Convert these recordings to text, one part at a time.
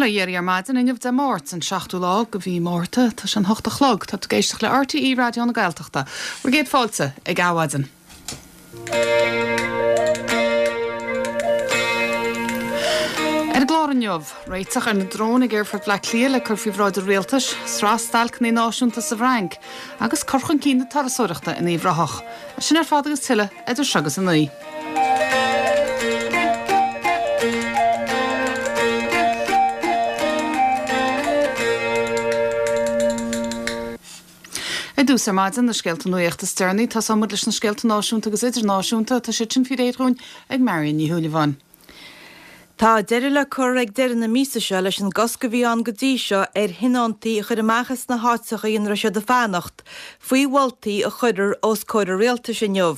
Bail ó Dhia oraibh ar maidin inniu Dé Máirt, an seachtú lá de mhí Márta. Tá sé an hocht a chlog. Tá tú ag éisteacht le RTÉ Raidió na Gaeltachta. Bhur gcéad fáilte ag Adhmhaidin. Ar an gclár inniu, réiteach ar na dróin ag Aerfort Bhaile Átha Cliath le cur faoi bhráid an Rialtais, sraith stailceanna náisiúnta sa bhFrainc, agus cur chun cinn na turasóireachta in Uíbh Ráthach. Sin ar fad agus tuilleadh idir seo agus a 9. Ar dtús ar maidin, na scéalta nuachta is deireanaí. Tosóidh muid leis na scéalta náisiúnta agus idirnáisiúnta. Tá siad sin faoi réir dhúinn ag Marion Ní Shúilleabháin. Tá deireadh le cur ag deireadh na míosa seo leis an gcosc a bhí ann go dtí seo ar thionóntaí a chur amach as na háiteacha ina raibh siad ag fanacht, faoi mholtaí a chuirfear os comhair an Rialtais inniu.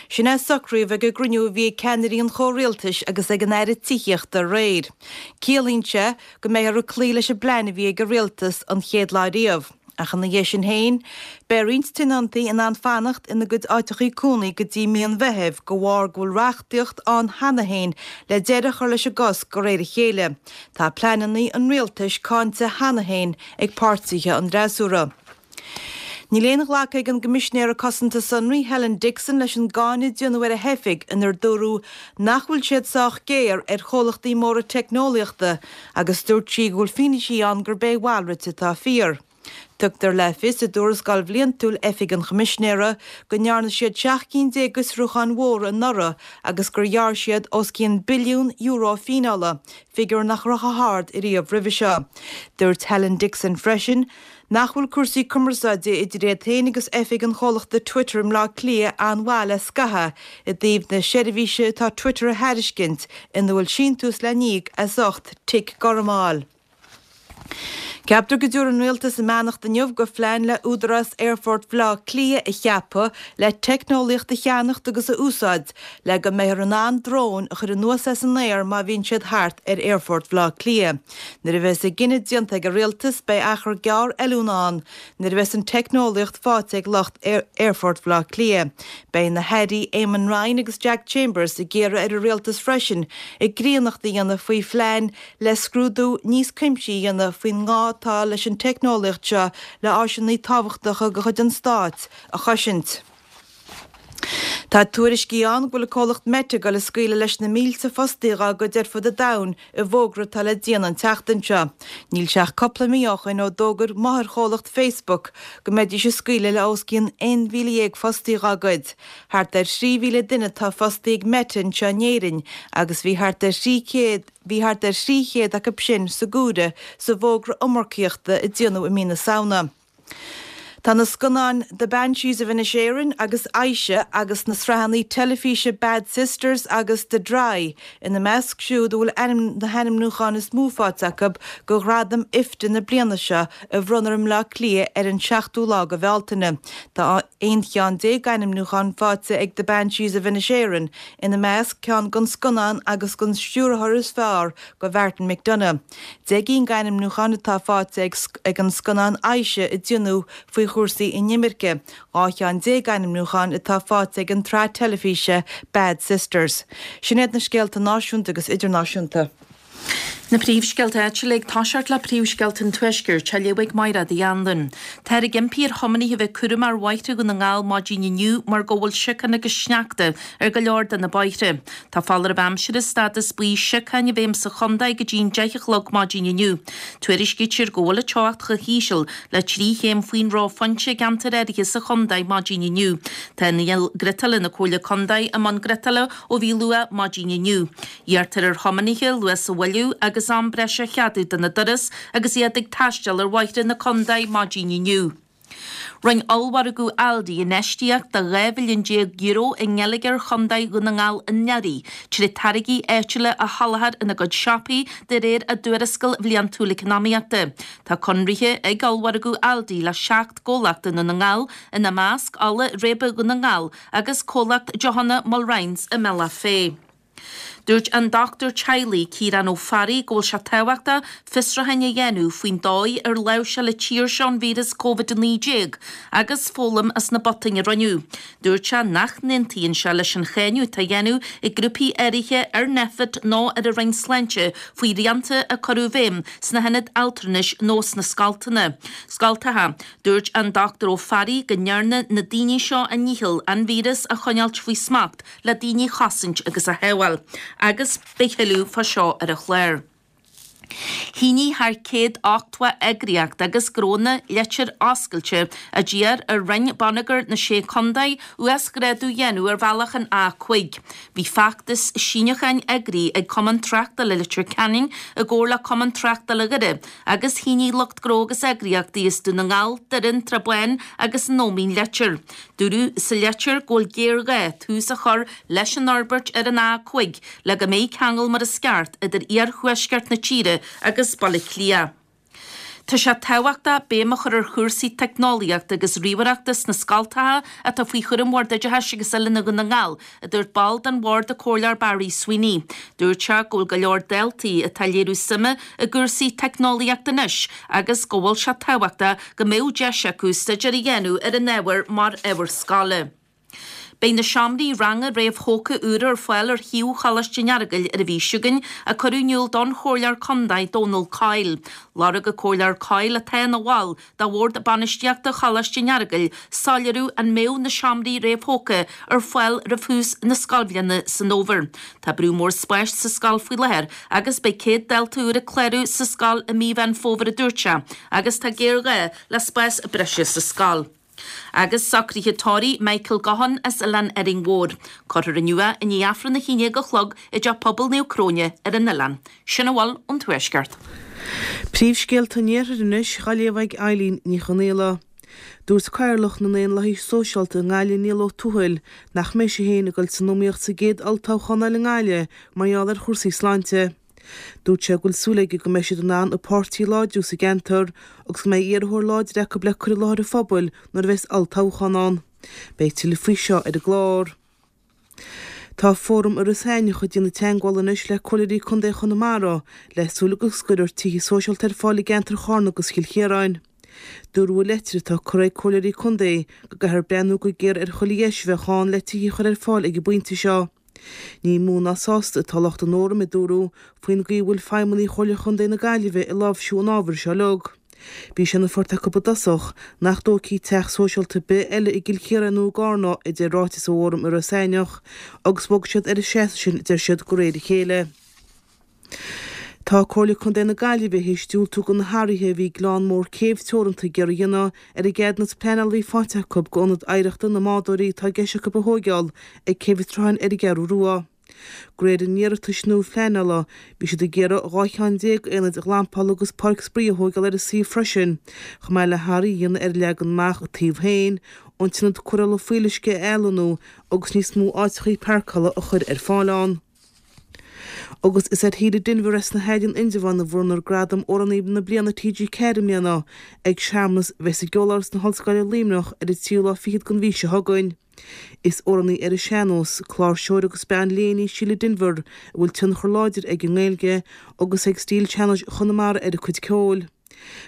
Sin é a socraíodh ag an gcruinniú a bhí ag ceannairí an chomhrialtais agus ag an Aire Tithíochta aréir. Ciallaíonn sé go mbeifear ag cloí leis an bplean a bhí ag an Rialtas an chéad lá riamh. Ach ina dhiaidh sin féin, beidh roinnt tionóntaí in ann fanacht ina gcuid áiteachaí cónaí go dtí mí an Mheithimh de bharr go bhfuil reachtaíocht ann cheana féin le deireadh a chur leis an gcosc de réir a chéile. Tá pleananna an rialtais cáinte cheana féin ag páirtithe an fhreasúra. Níl aon ghlacadh ag an gCoimisinéir Cosanta Sonraí Helen Dixon leis an gcáineadh a déanadh ar a hoifig inar dúradh nach bhfuil siad sách géar ar chomhlachtaí móra teicneolaíochta agus dúirt sí go bhfuil fianaisí ann gurb é a mhalrait atá fíor. Tugtar le fios i dtuarascáil bhliantúil Oifig an Choimisinéara go ndearna siad 17 cinn d'fhiosrúcháin mhóra anuraidh agus gur ghearr siad os cionn billiún euro fíneála, figiúr nach raibh chomh hard ariamh roimhe seo. Dúirt Helen Dixon freisin nach bhfuil cúrsaí cumarsáide idir iad féin agus oifig an chomhlachta Twitter i mBleá Cliath an-mhaith le scaitheamh i dtaobh na seirbhíse atá Twitter a thairiscint ina bhfuil síntiús le n-íoc as ucht tic gorm a fháil. Ceaptar go dtabharfaidh an Rialtas a mbeannacht inniu go phlean le Údarás Aerfort Bhaile Átha Cliath a cheapadh le teicneolaíocht a cheannacht agus a úsáid le go mbeifear in ann dróin a chur anuas as an aer má bhíonn siad thart ar Aerfort Bhaile Átha Cliath. Nuair a bheas an cinneadh déanta ag an Rialtas beidh achar gearr oiliúna ann nuair a bheas an teicneolaíocht faighte ag lucht Aerfort Bhaile Átha Cliath. Beidh na hAirí Eamon Ryan agus Jack Chambers ag iarraidh ar an Rialtas freisin a gcríonnacht a dhéanamh faoi phlean le scrúdú níos cuimsithí a dhéanamh faoin ngá atá leis an teicneolaíocht seo le áiseanna tábhachtacha de chuid an Stáit a chosaint. Tá tuairiscí ann go bhfuil an comhlacht Meta ag dul ag scaoileadh leis na mílte fostaí dhá gcuid ar fud an domhain i bhfógra atá le déanamh an tseachtain seo. Níl sé ach cúpla mí ó shoin ó d'fhógair máthairchomhlacht Facebook go mbeidís ag scaoileadh le os cionn 11,000 fostaí dhá gcuid. Thart ar 3,000 duine atá fostaí ag Meta anseo in Éirinn agus bhí thart ar 300 bhí thart ar 300 acu sin sa gcomhaireamh sa bhfógra iomarcaíochta a déanadh i mí na Samhna. Tá na scannáin The Banshees of Inisherin agus Aisha agus na sraitheanna teilifíse Bad Sisters agus The Dry ina measc siúd a bhfuil ainm na hainmniúcháin is mó faighte acu do ghradaim IFTA na bliana seo a bhronnfar i mBleá Cliath ar an seachtú lá de Bhealtaine. Tá 11 cheann d'ainmniúcháin faighte ag The Banshees of Inisherin, ina measc ceann don scannán agus don stiúrthóir is fearr do Mhartin McDonagh. 10 gcinn d'ainmniúcháin atá faighte ag an scannán Aisha a déanadh faoi chúrsaí inimirce, 12 cheann d'ainmniúcháin atá faighte ag an tsraith teilifíse Bad Sisters. Sin iad na scéalta náisiúnta agus idirnáisiúnta. Na príomhscéalta áitiúla ag toiseacht le príomhscéalta an Tuaiscirt, á léamh ag Mairéad Uí Anluain. Táthar ag impí ar thiománaithe a bheith cúramach ar bhóithre Dhún na nGall maidin inniu mar go bhfuil siocán agus sneachta ar go leor de na bóithre. Tá foláireamh aimsire stádas buí siocáin i bhfeidhm sa chontae go dtí an 10 a chlog maidin inniu. Tuairiscítear go bhfuil an teocht chomh híseal le 3 chéim faoin reophointe i gceantair áirithe sa chontae maidin inniu. Tá inneall griotála na Comhairle Contae i mbun griotála ó bhí luath maidin inniu. Iarrtar ar thiománaithe luas a mhoilliú agus am breise a cheadú do na dturas agus iad ag taisteal ar bhóithre na contae maidin inniu. Rinne ollmhargadh Aldi infheistíocht de €12 mhilliún i ngeilleagar Chontae Dhún na nGall anuraidh trí táirgí áitiúla a sholáthar ina gcuid siopaí de réir a dtuarascáil bhliantúil eacnamaíochta. Tá conraithe ag ollmhargadh Aldi le 7 gcomhlacht i nDún na nGall, ina measc Ola Réibe Dhún na nGall agus comhlacht deochanna Mulrine's i mBealach Féich. Dúirt an dochtúir teaghlaigh Ciarán Ó Fearraigh go bhfuil sé tábhachtach fiosrúcháin a dhéanamh faoin dóigh ar láimhseáil an tír seo an víreas Covid-19 agus foghlaim as na botúin a rinneadh. Dúirt sé nach n-aontaíonn sé leis an cháineadh atá á dhéanamh ag grúpaí áirithe ar Nphet nó ar an Roinn Sláinte faoi shrianta a cuireadh i bhfeidhm sna hionaid altranais nó sna scoltanna. Scoltacha. Dúirt an Dr Ó Fearraigh go ndearna na daoine seo a ndícheall an víreas a choinneáilt faoi smacht le daoine a chosaint agus a shábháil. Agus beidh tuilleadh fá seo ar an chlár. Shínigh thar 180 eagraíocht agus gnónna litir oscailte a d'iarr ar Roinn Bonneagair na Sé Contae uasghrádú a dhéanamh ar bhealach an A5. Bhí feachtas síniúcháin eagraithe ag Cumann Tráchtála Leitir Ceanainn i gcomhar le Cumann Tráchtála Dhoire agus shínigh lucht gnó agus eagraíochtaí as Dún na nGall, Doire, an tSrath Bán agus an Ómaigh an litir. Dúradh sa litir go bhfuil géarghá tús a chur leis an fhorbairt ar an A5 le go mbeidh ceangal mar is ceart idir iarthuaisceart na tíre agus Baile Átha Cliath. Tá sé tábhachtach béim a chur ar chúrsaí teicneolaíochta agus ríomhaireachta sna scoltacha atá faoi chúram Bhord Oideachais agus Oiliúna Dhún na nGall, a dúirt ball den bhord, an Comhairleoir Barry Sweeney. Dúirt sé go bhfuil go leor daltaí atá ag léiriú suime i gcúrsaí teicneolaíochta anois agus go bhfuil sé tábhachtach go mbeadh deis acu staidéar a dhéanamh ar an ábhar mar ábhar scoile. Beidh na seomraí ranga réamhthógtha úra ar fáil ar shuíomh Choláiste an Earagail ar an mhí seo chugainn, a cuireadh in iúl don Chomhairleoir Contae Dónal Coyle. Lorg an Comhairleoir Coyle, atá ina bhall de Bhord Bainistíochta Choláiste an Earagail, soiléiriú an mbeadh na seomraí réamhthógtha ar fáil roimh thús na scoilbhliana san fhómhar. Tá brú mór spáis sa scoil faoi láthair agus beidh 100 dalta úr ag clárú sa scoil i mí Mheán Fómhair a dúirt sé agus tá géarghá le spás breise sa scoil. Agus socruithe tórraimh Michael Gaughan as Oileán Árainn Mhór. Cuirfear inniu é i ndiaidh Aifreann a haon déag a chlog i dTeach Pobail Naomh Cróine ar an oileán. Sin a bhfuil ón Tuaisceart. Príomhscéalta an Iarthair anois á léamh ag Eileen Ní Chonghaile. Dúirt Cathaoirleach na nDaonlathaithe Sóisialta i nGaillimh Niall Ó Tuathail nach mbeidh sé féin ag dul san iomaíocht sa gcéad olltoghchán eile i nGaillimh mar gheall ar chúrsaí sláinte. Dúirt sé go bhfuil súil aige go mbeidh siad in ann an páirtí a láidriú sa gceantar agus go mbeidh iarrthóir láidir acu le cur i láthair an phobail nuair a bheas olltoghchán ann. Beidh tuilleadh faoi seo ar an gclár. Tá Fóram Iorras Aithneach ag déanamh teagmhála anois le Comhairleoirí Contae Chonamara le súil go gcuirfear tithe sóisialta ar fáil i gceantar Charna agus Chill Chiaráin. Dúradh i leitir atá curtha ag Comhairleoirí Contae go gcaithfear breathnú go géar ar chuile dheis a bheadh ann le tithe a chur ar fáil ag an bpointe seo. Ní mó ná sásta atá lucht an Fhóraim, a dúradh, faoin gcaoi a bhfuil feidhmeannaigh Chomhairle Chontae na Gaillimhe ag láimhsiú an ábhair seo uilig. Bhí sé ina phort acu i dtosach nach dtógfaí teach sóisialta ar bith eile i gCill Chiaráin nó i gCarna, a deir ráiteas ó Fhóram Iorras Aithneach, agus bhog siad ar an seasamh sin, a deir siad, de réir a chéile. Tá Comhairle Contae na Gaillimhe théis diúltú do na hathruithe a bhí Gleann Mór Céibh Teoranta ag iarraidh a dhéanamh ar an gceadúnas pleanála a bhí faighte acu d'ionad oidhreachta na mbádóirí atá i gceist acu a thóigeáil ag Céibh an tSrutháin ar an gCeathrú Rua. De réir a n-iarratais nua phleanála, bhí siad ag iarraidh 12 cheann aonaid ghlampála agus páirc spraoi a thóigeáil ar an suíomh freisin, chomh maith le hathruithe a dhéanamh ar an leagan amach an taobh féin, an t-ionad cóireála fuíolluisce a athlonnú agus níos mó áiteachaí páirceála a chur ar fáil ann. Agus is ar Shíle Denvir as na hAill in Indreabhán a bhronnfar Gradam Amhránaí na Bliana TG4 i mbliana ag searmanas a bheas i gCeoláras na hOllscoile Luimneach ar an tríú lá fichead den mhí seo chugainn. Is amhránaí ar an sean-nós, cláirseoir agus bean léinn í Síle Denvir a bhfuil tionchar láidir ag an nGaeilge agus ag stíl sean-nóis Chonamara ar a cuid ceoil.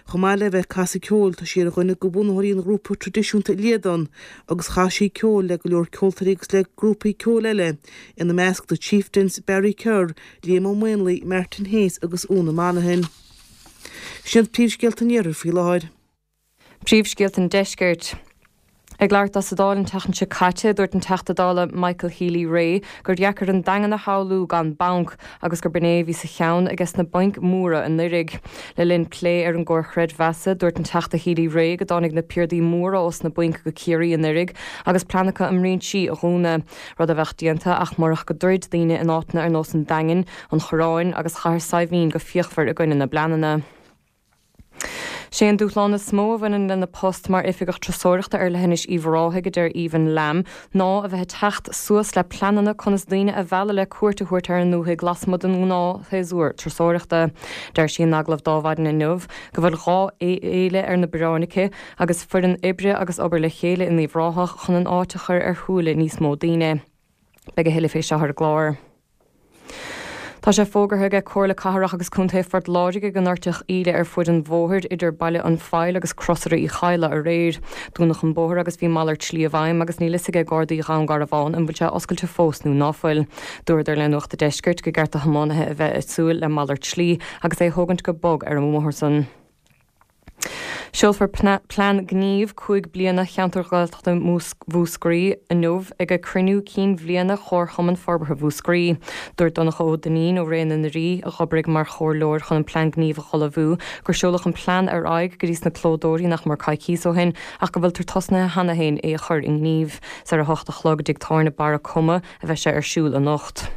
Chomh maith le bheith ag casadh ceoil, tá sí ar dhuine de bhunaitheoirí an ghrúpa traidisiúnta Líadan agus chas sí ceol le go leor ceoltóirí agus le grúpaí ceoil eile, ina measc The Chieftains, Barry Kerr, Liam Ó Maonlaí, Martin Hayes agus Úna Monaghan. Sin iad príomhscéalta an Iarthair faoi láthair. Príomhscéalta an Deiscirt. Ag labhairt dó sa Dáil an tseachtain seo caite, dúirt an Teachta Dála Michael Healy-Rae gur dheacair an Daingean a shamhlú gan banc agus gur b'in é a bhí sa cheann ages na bainc mhóra anuraidh. Le linn plé ar an gcomhar chreidmheasa, dúirt an Teachta Healy-Rae go dtáinig na piardaí móra ós na bainc go Ciarraí anuraidh agus plean acu a mbrinsí a dhúnadh, rud a bheadh déanta ach murach go dtroid daoine in áiteanna ar nós an Daingin, an Choireáin agus Chathair Saidhbhín go fíochmhar i gcoinne na bpleananna. Sé an dúshlán is mó a bhaineann lena post mar Oifigeach Turasóireachta ar Leithinis Uíbh Ráthaigh, a deir Aoibhinn Lamb, ná a bheith ag teacht suas le pleananna conas daoine a mhealladh le cuairt a thabhairt ar an ndúthaigh lasmuigh den ngnáthshéasúr turasóireachta. Deir sí in agallamh d'Adhmhaidin inniu go bhfuil 2 fhéile ar na bioráin aici agus foireann oibre agus obair le chéile in Uíbh Ráthach chun an áit a chur ar shúile níos mó daoine. Beidh a thuilleadh fé seo ar an gclár. Tá sé fógartha aige Comhairle Cathrach agus Contae Phort Láirge go ndoirtfeadh íle ar fuaid an bhóthair idir Baile an Phoill agus Crosaire Uí Chadhla aréir. Dúnadh an bóthar agus bhí malairt slí i bhfeidhm agus níl fhios aige Gardaí Dhún Garbhán an bhfuil sé oscailte fós nó ná fuil. Dúradar le Nuacht a' Deiscirt go gceart do thiománaithe a bheith ag súil le malairt slí agus é a thógaint go bog ar an mbóthar san. Seolfar plean gnímh 5 bliana Cheantar Gaeltachta Mhúscraí inniu ag cruinniú cinn bhliana Chomharchumann Forbartha Mhúscraí. Dúirt Donncha Ó Duinnín ó Ré na nDoirí, a dh'oibrigh mar chomhairleoir chun an plean gnímh a dh'ullmhú, gur seoladh an plean ar aghaidh go dtí sna clódóirí nach mór coicíos ó shin ach go bhfuiltear tosnaithe cheana féin é a chur i ngníomh. Is ar a hocht a chlog i dTigh Tábhairne Barra Coma a bheidh sé ar siúl anocht.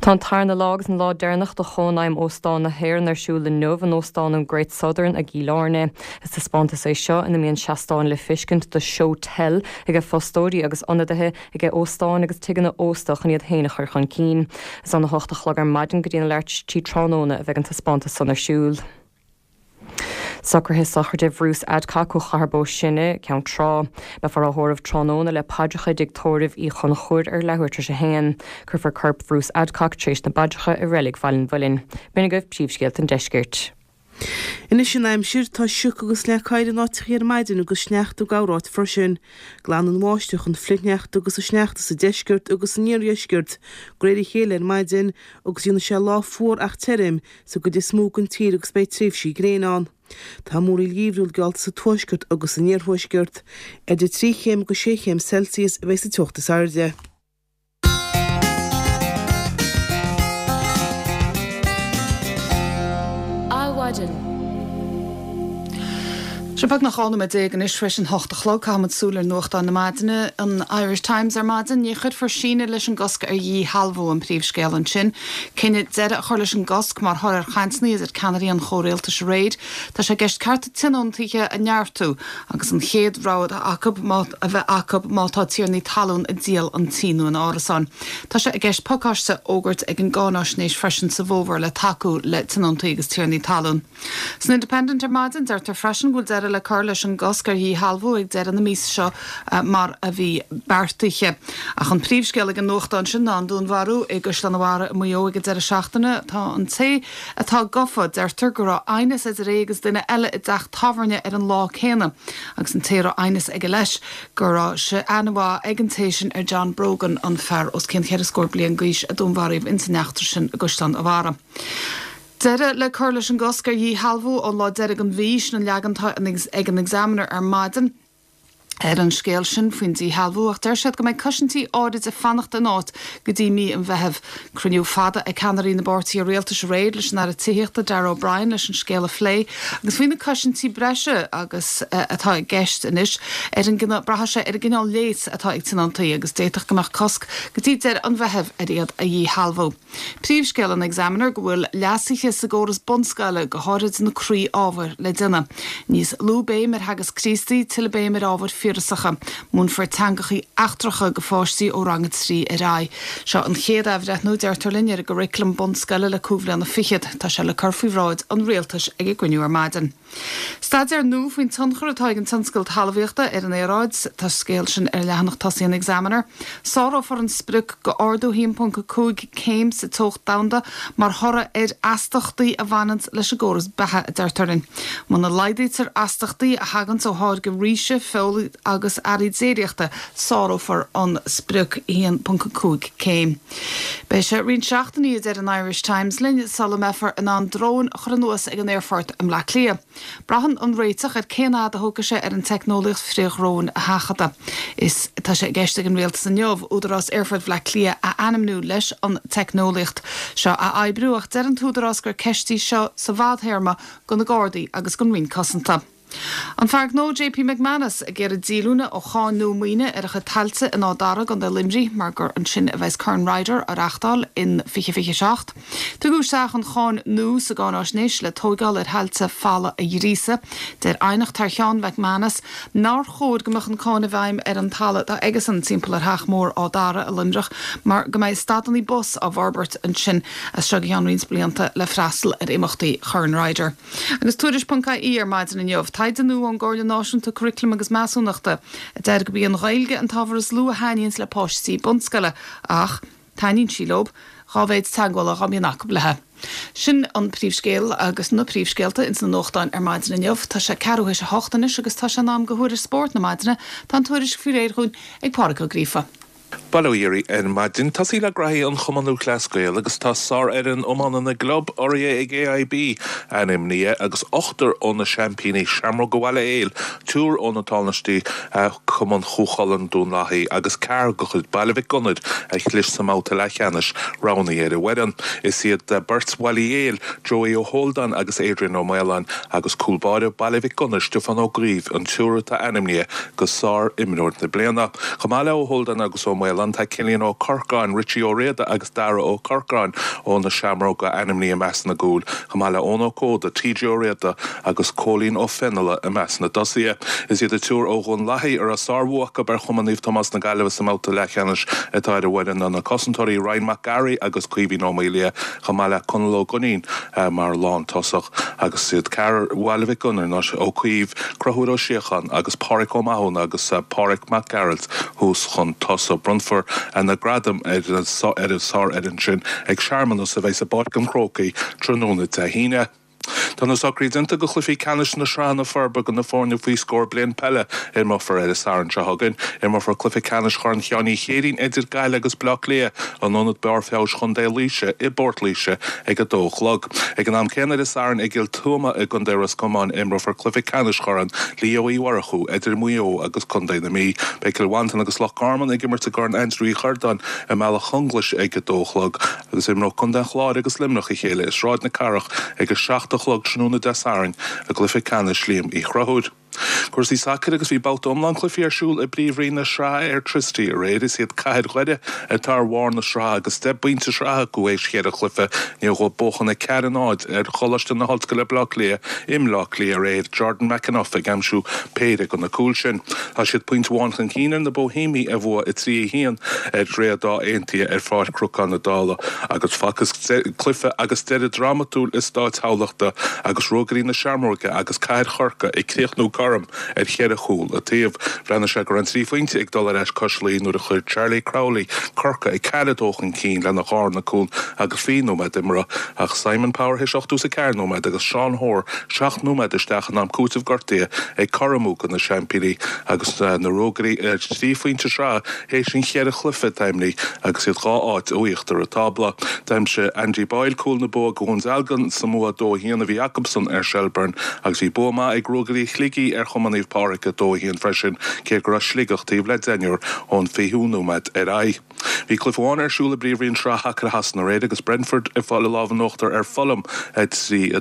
Tá an tarna lá agus an lá deireanach de Chónaidhm Óstán na hÉireann ar siúl inniu in Óstán an Great Southern i gCill Airne. Is taispeántas é seo ina mbíonn seastáin le feiscint do Show Tell aige fostóirí agus ionadaithe aige óstáin agus tigeanna ósta chun iad féin a chur chun cinn. Is óna hocht a chlog ar maidin go dtí an leathuair tar éis a trí tráthnóna a bheidh an taispeántas san ar siúl. Socruithe sochraide Bhruce Adcock ó Chathair Bó Sine, Ceann Trá. Beifear á thórramh tráthnóna le paidreacha i dtigh tórraimh Uí Chonchúir ar leathuair tar éis a haon. Cuirfear corp Bhruce Adcock tar éis na bpaidreacha i Reilig Bhaile an Mhuilinn. B'in agaibh príomhscéalta an deiscirt. Anois an aimsir, tá sioc agus leac oighir in áiteachaí ar maidin agus sneachta i gcorráit freisin. Glanann an bháisteach an flichshneachta agus an sneachta sa deisceart agus san iardheisceart de réir a chéile ar maidin agus déanfaidh sé lá fuar ach tirim sa gcuid is mó den tír agus beidh tréimhsí gréine ann. Tá múraíl gheimhriúil geallta sa tuaisceart agus san iarthuaisceart. Idir 3 chéim agus 6 chéim Celsius a bheidh sa teocht is airde. Adhmhaidin. Sé beagnach 12 nóiméad anois tar éis an hocht a chlog. Caithfimid súil ar nuachtáin na maidine. An Irish Times ar maidin. Ní chuirfear síneadh leis an gcosc ar dhíshealbhú, an príomhscéal ansin. Cinneadh deireadh a chur leis an gcosc mar thoradh ar chainteanna idir ceannairí an chomhrialtais aréir. Tá sé i gceist cearta tionóntaithe a neartú agus an chéad rogha acu a bheith acu má tá tiarnaí talún ag díol an tí nó an árasáin. Tá sé i gceist pacáiste a fhógairt ag an gcáináisnéis freisin sa bhfómhar le tacú le tionóntaí agus tiarnaí talún. San Independent ar maidin, deirtear freisin go bhfuil deireadh le cur leis an gcosc ar dhíshealbhú ag deireadh na míosa seo mar a bhí beartaithe. Ach an príomhscéal ag an nuachtán sin ná an dúnmharú i gCaisleán an Bharraigh i Maigh Eo ag an deireadh seachtaine. Tá an té atá gafa, deirtear go raibh aighneas idir é agus duine eile i dteach tábhairne ar an lá céanna agus an té a raibh aighneas aige leis, go raibh sé aithne mhaith ag an té sin ar John Brogan, an fear os cionn cheithre scór bliain d'aois a dúnmharaíodh ins an eachtra sin i gCaisleán an Bharraigh. Deireadh le cur leis an gcosc ar dhíshealbhú ón lá deiridh den mhí, sin an leagan atá ag an Examiner ar maidin ar an scéal sin faoin díshealbhú ach deir siad go mbeidh cosaintí áirid ag fanacht in áit go dtí mí an Mheithimh. Cruinniú fada ag ceannairí na bpáirtithe rialtais aréir leis an Aire Tithíochta Darragh O'Brien leis an scéal a phlé agus faoi na cosaintí breise agus atá i gceist anois ar an braithfidh sé ar an gcineál léas atá ag tionóntaí agus d'fhéadfadh go mbeadh cosc go dtí deireadh an Mheithimh ar iad a dhíshealbhú. Príomhscéal an Examiner go bhfuil leasuithe sa gcóras bunscoile, go háirid na croí-ábhair, le déanamh. Níos lú béim ar theagasc Críostaí, tuilleadh béim ar ábhair fíorasacha. Múinfear teangachaí eachtracha go pháistí ó rang a 3 ar aghaidh. Seo an chéad athbhreithniú, deirtear linn, ar an gcuraclam bunscoile le cúig bhliana fichead. Tá sé le cur faoi bhráid an Rialtais ag an gcruinniú ar maidin. Staidéar nua faoin tionchar atá ag an tionscal talmhaíochta ar an aeráid. Tá scéal sin ar leathanach tosaigh an Examiner. Sárófar an sprioc go ardú 1.5 céim sa teocht domhanda mar thoradh ar astachtaí a bhaineanns leis an gcóras beatha, a deirtear linn. Muna laghdaítear astachtaí a thaganns ó tháirgeadh ríse, feola agus earraí déiríochta, sárófar an sprioc 1.5 céim. Beidh sé roinnt seachtainí, a deir an Irish Times linn, sula mbeifear in ann dróin a chur anuas ag an aerfort i mBleá Cliath. Braitheann an réiteach ar cén fhad a thógfaidh sé ar an teicneolaíocht frithdhróin a sheachadadh. Is tá sé i gceist ag an Rialtas inniu Údarás Aerfort Bhaile Átha Cliath a ainmniú leis an teicneolaíocht seo a oibriú ach deir an t-údarás gur ceist í seo sa bhfadthéarma do na Gardaí agus don Roinn Cosanta. An fear gnó JP McManus ag iarraidh díolúine ó cháin nua maoine ar a chuid tailte in Áth Dara i gContae Luimnigh mar gur ansin a bheas Corn Ryder á reáchtáil in 2027. Tugadh isteach an cháin nua sa gcáináisnéis le tóigeáil ar thailte falla a ghríosadh. Deir aighneacht thar cheann McManus nár chóir go mbeadh an cáin i bhfeidhm ar an talamh atá aigesan timpeall ar Theach Mór Áth Dara i Luimneach mar go mbeidh stadannaí bus á bhforbairt ansin as seo go ceann roinnt blianta le freastal ar imeachtaí Chorn Ryder. Agus Tuairisc ponc IE ar maidin inniu, taighde nua ón gComhairle Náisiúnta Curaclaim agus Measúnachta a deir gurb í an Ghaeilge an t-ábhar is lú a thaitníonns le páistí bunscoile ach. Taitníonn sí leo, dhá mhéid teagmhála dhá mbíonn acu léi. Sin an príomhscéal agus na príomhscéalta ins na nuachtáin ar maidin inniu. Tá sé ceathrú théis a hocht anois agus tá sé in am do thuairisc spóirt na maidine. Tá an tuairisc faoi réir dhúinn ag Pádraig Ó Gríofa. Bail ó Dhia oraibh ar maidin. Tosaí le graithí an Chumann Lúthchleas Gael agus tá sárfhoireann iomána na gclub urraithe ag AIB ainmnithe agus ochtar ó na seaimpíní, Seamróga Bhaile Héil, triúr ó na tánaistí, Cumann Chú Chulainn, Dún Lathaí, agus ceathrar de chuid Baile Mhic Gonair a chlis sa mbabhta leathcheannais, roghnaithe ar an bhfoireann. Is iad beirt Bhaile Héil, Joey Ó hÓldáin agus Adrian Ó Maoláin, agus cúl báire Baile Mhic Gonair, Stiofán Ó Caoimh, an triúr atá ainmnithe go sár-imreoir na bliana. Chomh maith le Ó hÓldáin agus Ó Maoláin, tá Cillian Ó Corcáin, Richie Ó Riada agus Dara Ó Corcáin ó na Seamróga ainmnithe i measc na gcúl, chomh maith le Eoin Ó Códa, TJ Ó Riada agus Cóilín Ó Fionnaile i measc na dtosaithe. Is iad an triúr ó Dhún Lathaí a raibh sárbhua acu ar Chumann Naomh Tomás na Gaillimhe sa mbabhta leathcheannais atá ar an bhfoireann ná na cosantóirí Ryan Mac Garaidh agus Caoimhín Ó Maolaodha, chomh maith le Conall Ó Duinnín mar lántosach, agus is iad ceathrar Bhaile Mhic Gonair ná Ó Caoimh, Conchúr Ó Síocháin agus Páraic Ó Mathúna agus Páraic Mac Gearailt thuas chun tosaigh. Bronnfar na gradaim ar an sárfhoireann sin ag searmanas a bheidh i bPáirc an Chrócaigh tráthnóna Dé hAoine. Tá na socruithe déanta do chluichí ceannais na sraitheanna forbartha do na foirne faoi scór bliain peile a imreofar ar an Satharn seo chugainn. Imreofar cluiche ceannais Chorn Sheáin Uí Chéirín idir Gaillimh agus Baile Átha Cliath in Ionad Barr Feabhais Chontae Laoise i bPort Laoise ag a dó a chlog. Ag an am céanna ar an Satharn i gCill Tuama i gContae Ros Comáin imreofar cluiche ceannais Chorn Leo Uí Mhurchú idir Maigh Eo agus Contae na Mí. Beidh Cill Mhantáin agus Loch Garman ag imirt i gCorn Aindriú Uí Chordáin i mBealach Chonglais ag a dó a chlog. Agus imreoidh Contae an Chláir agus Luimneach a chéile i Sráid na Cathrach ag 7 a chlog tráthnóna Dé Sathairn i gcluiche ceannais Liam Uí Chonchúir. Cúrsaí sacair agus bhí babhta iomlán cluichí ar siúl i bPríomhroinn na Sraithe Airtricity aréir. Is iad Cathair Dhoire atá ar bharr na sraithe agus deich bpointe sraithe acu théis cheithre chluiche. I ndiaidh dóibh buachan 4, 0 ar Choláiste na hOllscoile Baile Átha Cliath i mBleá Cliath aréir, Jordan McEneff ag aimsiú péire de na cúil sin. Tá siad pointe amháin chun cinn ar na Boihéamaigh a bhuaigh 3, 1 ar Dhroichead Átha Aontaithe ar Pháirc Chnocán na Dála agus facthas cluiche agus deireadh drámatúil i Stáid Thamhlachta agus Ruagairí na Seamróige agus Cathair Chorcaí ag críochnú cothrom ar cheithre chúl an taobh. Bhreathnaigh sé go raibh an trí phointe ag dul ar ais cois Laoi nuair a chuir Charlie Crowley Corcaigh 4, 2 chun cinn lena dharna cúl agus 20 nóiméad imeartha ach Simon Power théis 84 nóiméad agus Seán Hoare seacht nóiméad isteach in am cúitimh gortaithe ag cothromú do na seaimpíní agus na Ruagairí ar thrí phointe sraithe théis an cheithre chluiche atá imeartha agus iad dhá áit ó íochtar an tábla. D'aimsigh Andy Boyle cúl na bua do Dhún Dealgan sa mbua 2-1 a bhí acusan ar Shelbourne agus bhí bua maith ag Ruagairí Shligigh ar Chumann Naomh Pádraig 2-1 freisin cé go raibh Sligeach taobh le deichniúr ón 20ú nóiméad ar aghaidh. Bhí cluiche amháin ar siúl i bPríomhroinn Shraith Shacair Shasana aréir agus Brentford ag fáil an lámh in uachtar ar Fulham 3,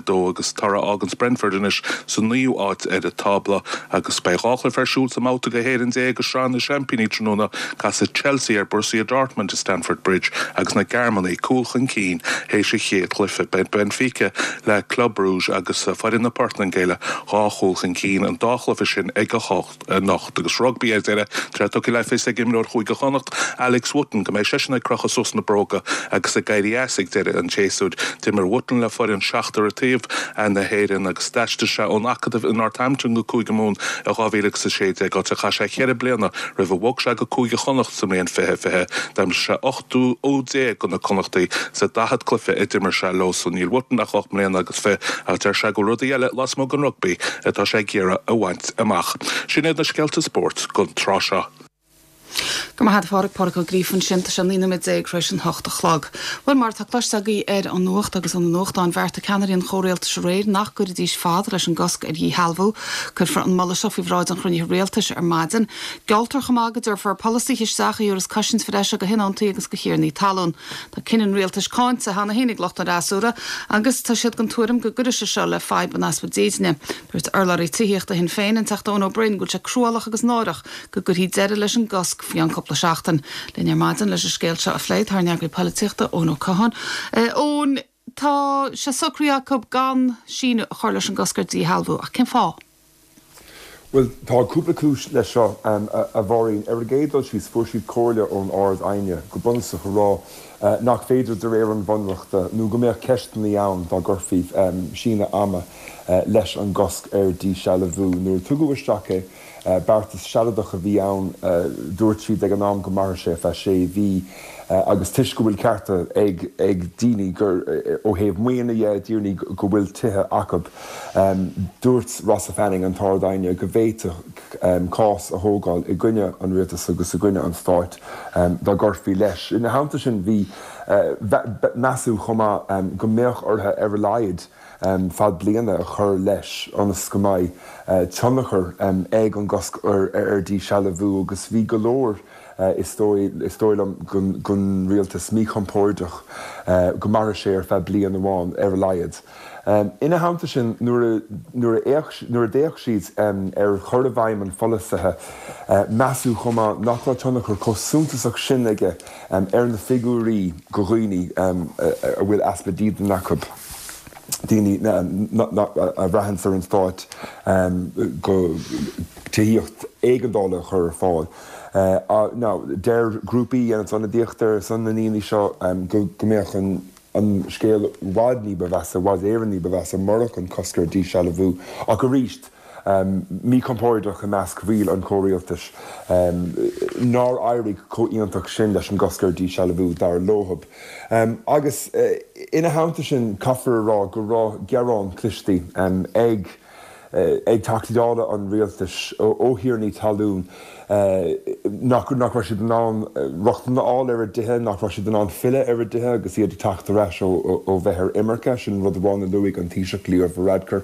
2 agus toradh a fháganns Brentford anois sa naoú áit ar an tábla agus beidh dhá chluiche ar siúl sa mbabhta go héireann déag i Sraith na Seaimpíní tráthnóna, casfaidh Chelsea ar Borussia Dortmund i Stamford Bridge agus na Gearmánaigh cúl chun cinn théis an chéad chluiche. Beidh Benfica le Club Brugge agus foireann na Portaingéile dhá chúl chun cinn an dá chluiche sin ag a hocht. anocht. Agus rugbaí ar deireadh, tá sé tugtha le fios ag imreoir Chúige Chonnacht, Alex Wootton, go mbeidh seisean ag crochadh suas na bróga agus ag éirí as ag deireadh an tséasúir. D'imir Wootton le foireann seachtar an taobh na hÉireann agus d'aistrigh sé ón Acadamh i Northampton go Cúige Mumhan i 2016, áit a chaith sé cheithre bliana roimh a bhog sé go Cúige Chonnacht sa mbliain 2020. D'aimsigh sé 18 úd do na Connachtaigh sa 40 cluiche a d'imir sé leo san. Níl Wootton ach ocht mbliana agus fiche ach deir sé go bhfuil rudaí eile lasmuigh den rugbaí atá sé ag iarraidh a bhaint amach. Sin iad na scéalta spóirt don tráth seo. Go raibh maith agat a Phádraig, Pádraig Ó Gríofa ansin. Tá sé 19 nóiméad tar éis an hocht a chlog. Bhuel, mar atá cloiste agaibh ar an nuacht agus ó na nuachtáin, bheartaigh ceannairí an chomhrialtais aréir nach gcuirfidís fad leis an gcosc ar dhíshealbhú. Cuirfear an moladh seo faoi bhráid an chruinnithe rialtais ar maidin. Gealltar chomh maith go dtabharfar polasaithe isteach a thabharfas cosaint bhreise do thionóntaí agus do thiarnaí talún. Tá cinneadh an rialtais cáinte cheana féin ag lucht an fhreasúra agus tá siad den tuairim go gcuirfidh sé seo le fadhb an easpa dídine. Dúirt urlabhraí tithíochta Shinn Féin, an Teachta Eoin Ó Broin, go bhfuil sé cruálach agus náireach go gcuirfí deireadh leis an gcosc faoi cheann cúpla seachtain. Linn ar maidin leis an scéal seo a phlé tá ár n-eagraí polaitíochta, Eoin Ó Catháin. Eoin, tá sé socraithe acu gan síneadh a chur leis an gcosc ar díshealbhú, ach cén fáth? Bhuel, tá cúpla cúis leis seo, a Mháirín. Ar an gcéad dul síos, fuair siad comhairle ón Ard-Aighne, go bunúsach, a rá nach féidir de réir an Bhunreachta, nó go mbeadh ceisteanna ann dá gcuirfí síneadh ama leis an gcosc ar díshealbhú. Nuair a tugadh isteach é, beartas sealadach a bhí ann, dúirt siad ag an am go mairfeadh sé ar feadh sé mhí. Agus toisc go bhfuil cearta ag ag daoine gur ó thaobh maoine dhe, daoine go bhfuil tithe acu, dúirt Rossa Fanning, an tArd-Aighne, go bhféadfadh cás a thógáil i gcoinne an rialtais agus i gcoinne an stáit dá gcuirfí leis. Ina theannta sin bhí measadh chomh maith go mbeadh orthu ar a laghad fad bliana a chur leis ionas go mbeidh tionchar ag an gcosc ar díshealbhú agus bhí go leor Is dóigh, is dóigh liom, gon rialtas míchompóirdeach go mairfeadh sé ar feadh bliain amháin ar a laghad. Ina theannta sin, nuair a, nuair a fhéach, nuair a d'fhéach siad ar chur i bhfeidhm an pholasaithe, measadh chomh maith nach raibh tionchar chomh suntasach sin aige ar na figiúirí go dhaoine a bhfuil easpa dídine acu, daoine a bhraitheanns ar an stát go tithíocht éigeandála a chur ar fáil. Now, deir grúpaí a dhéananns ionadaíocht ar son na ndaoine seo go mbeadh an scéal i bhfad ní ba mheasa, i bhfad Éireann ní ba mheasa murach an cosc ar díshealbhú. Ach arís, míchompóirdeach i measc bhaill an chomhrialtais nár éirigh chomh iontach sin leis an gcosc ar díshealbhú, dar leothab. Agus ina theannta sin, caithfear a rá go raibh gearán cloiste ag. ag Teachtaí Dála an rialtais ó thiarnaí talún nach raibh siad in ann rochtain a fháil ar a dtithe, nach raibh siad in ann filleadh ar a dtithe agus iad ag teacht ar ais ó bheith ar imirce. Sin rud amháin a luaigh an Taoiseach Leo Varadkar.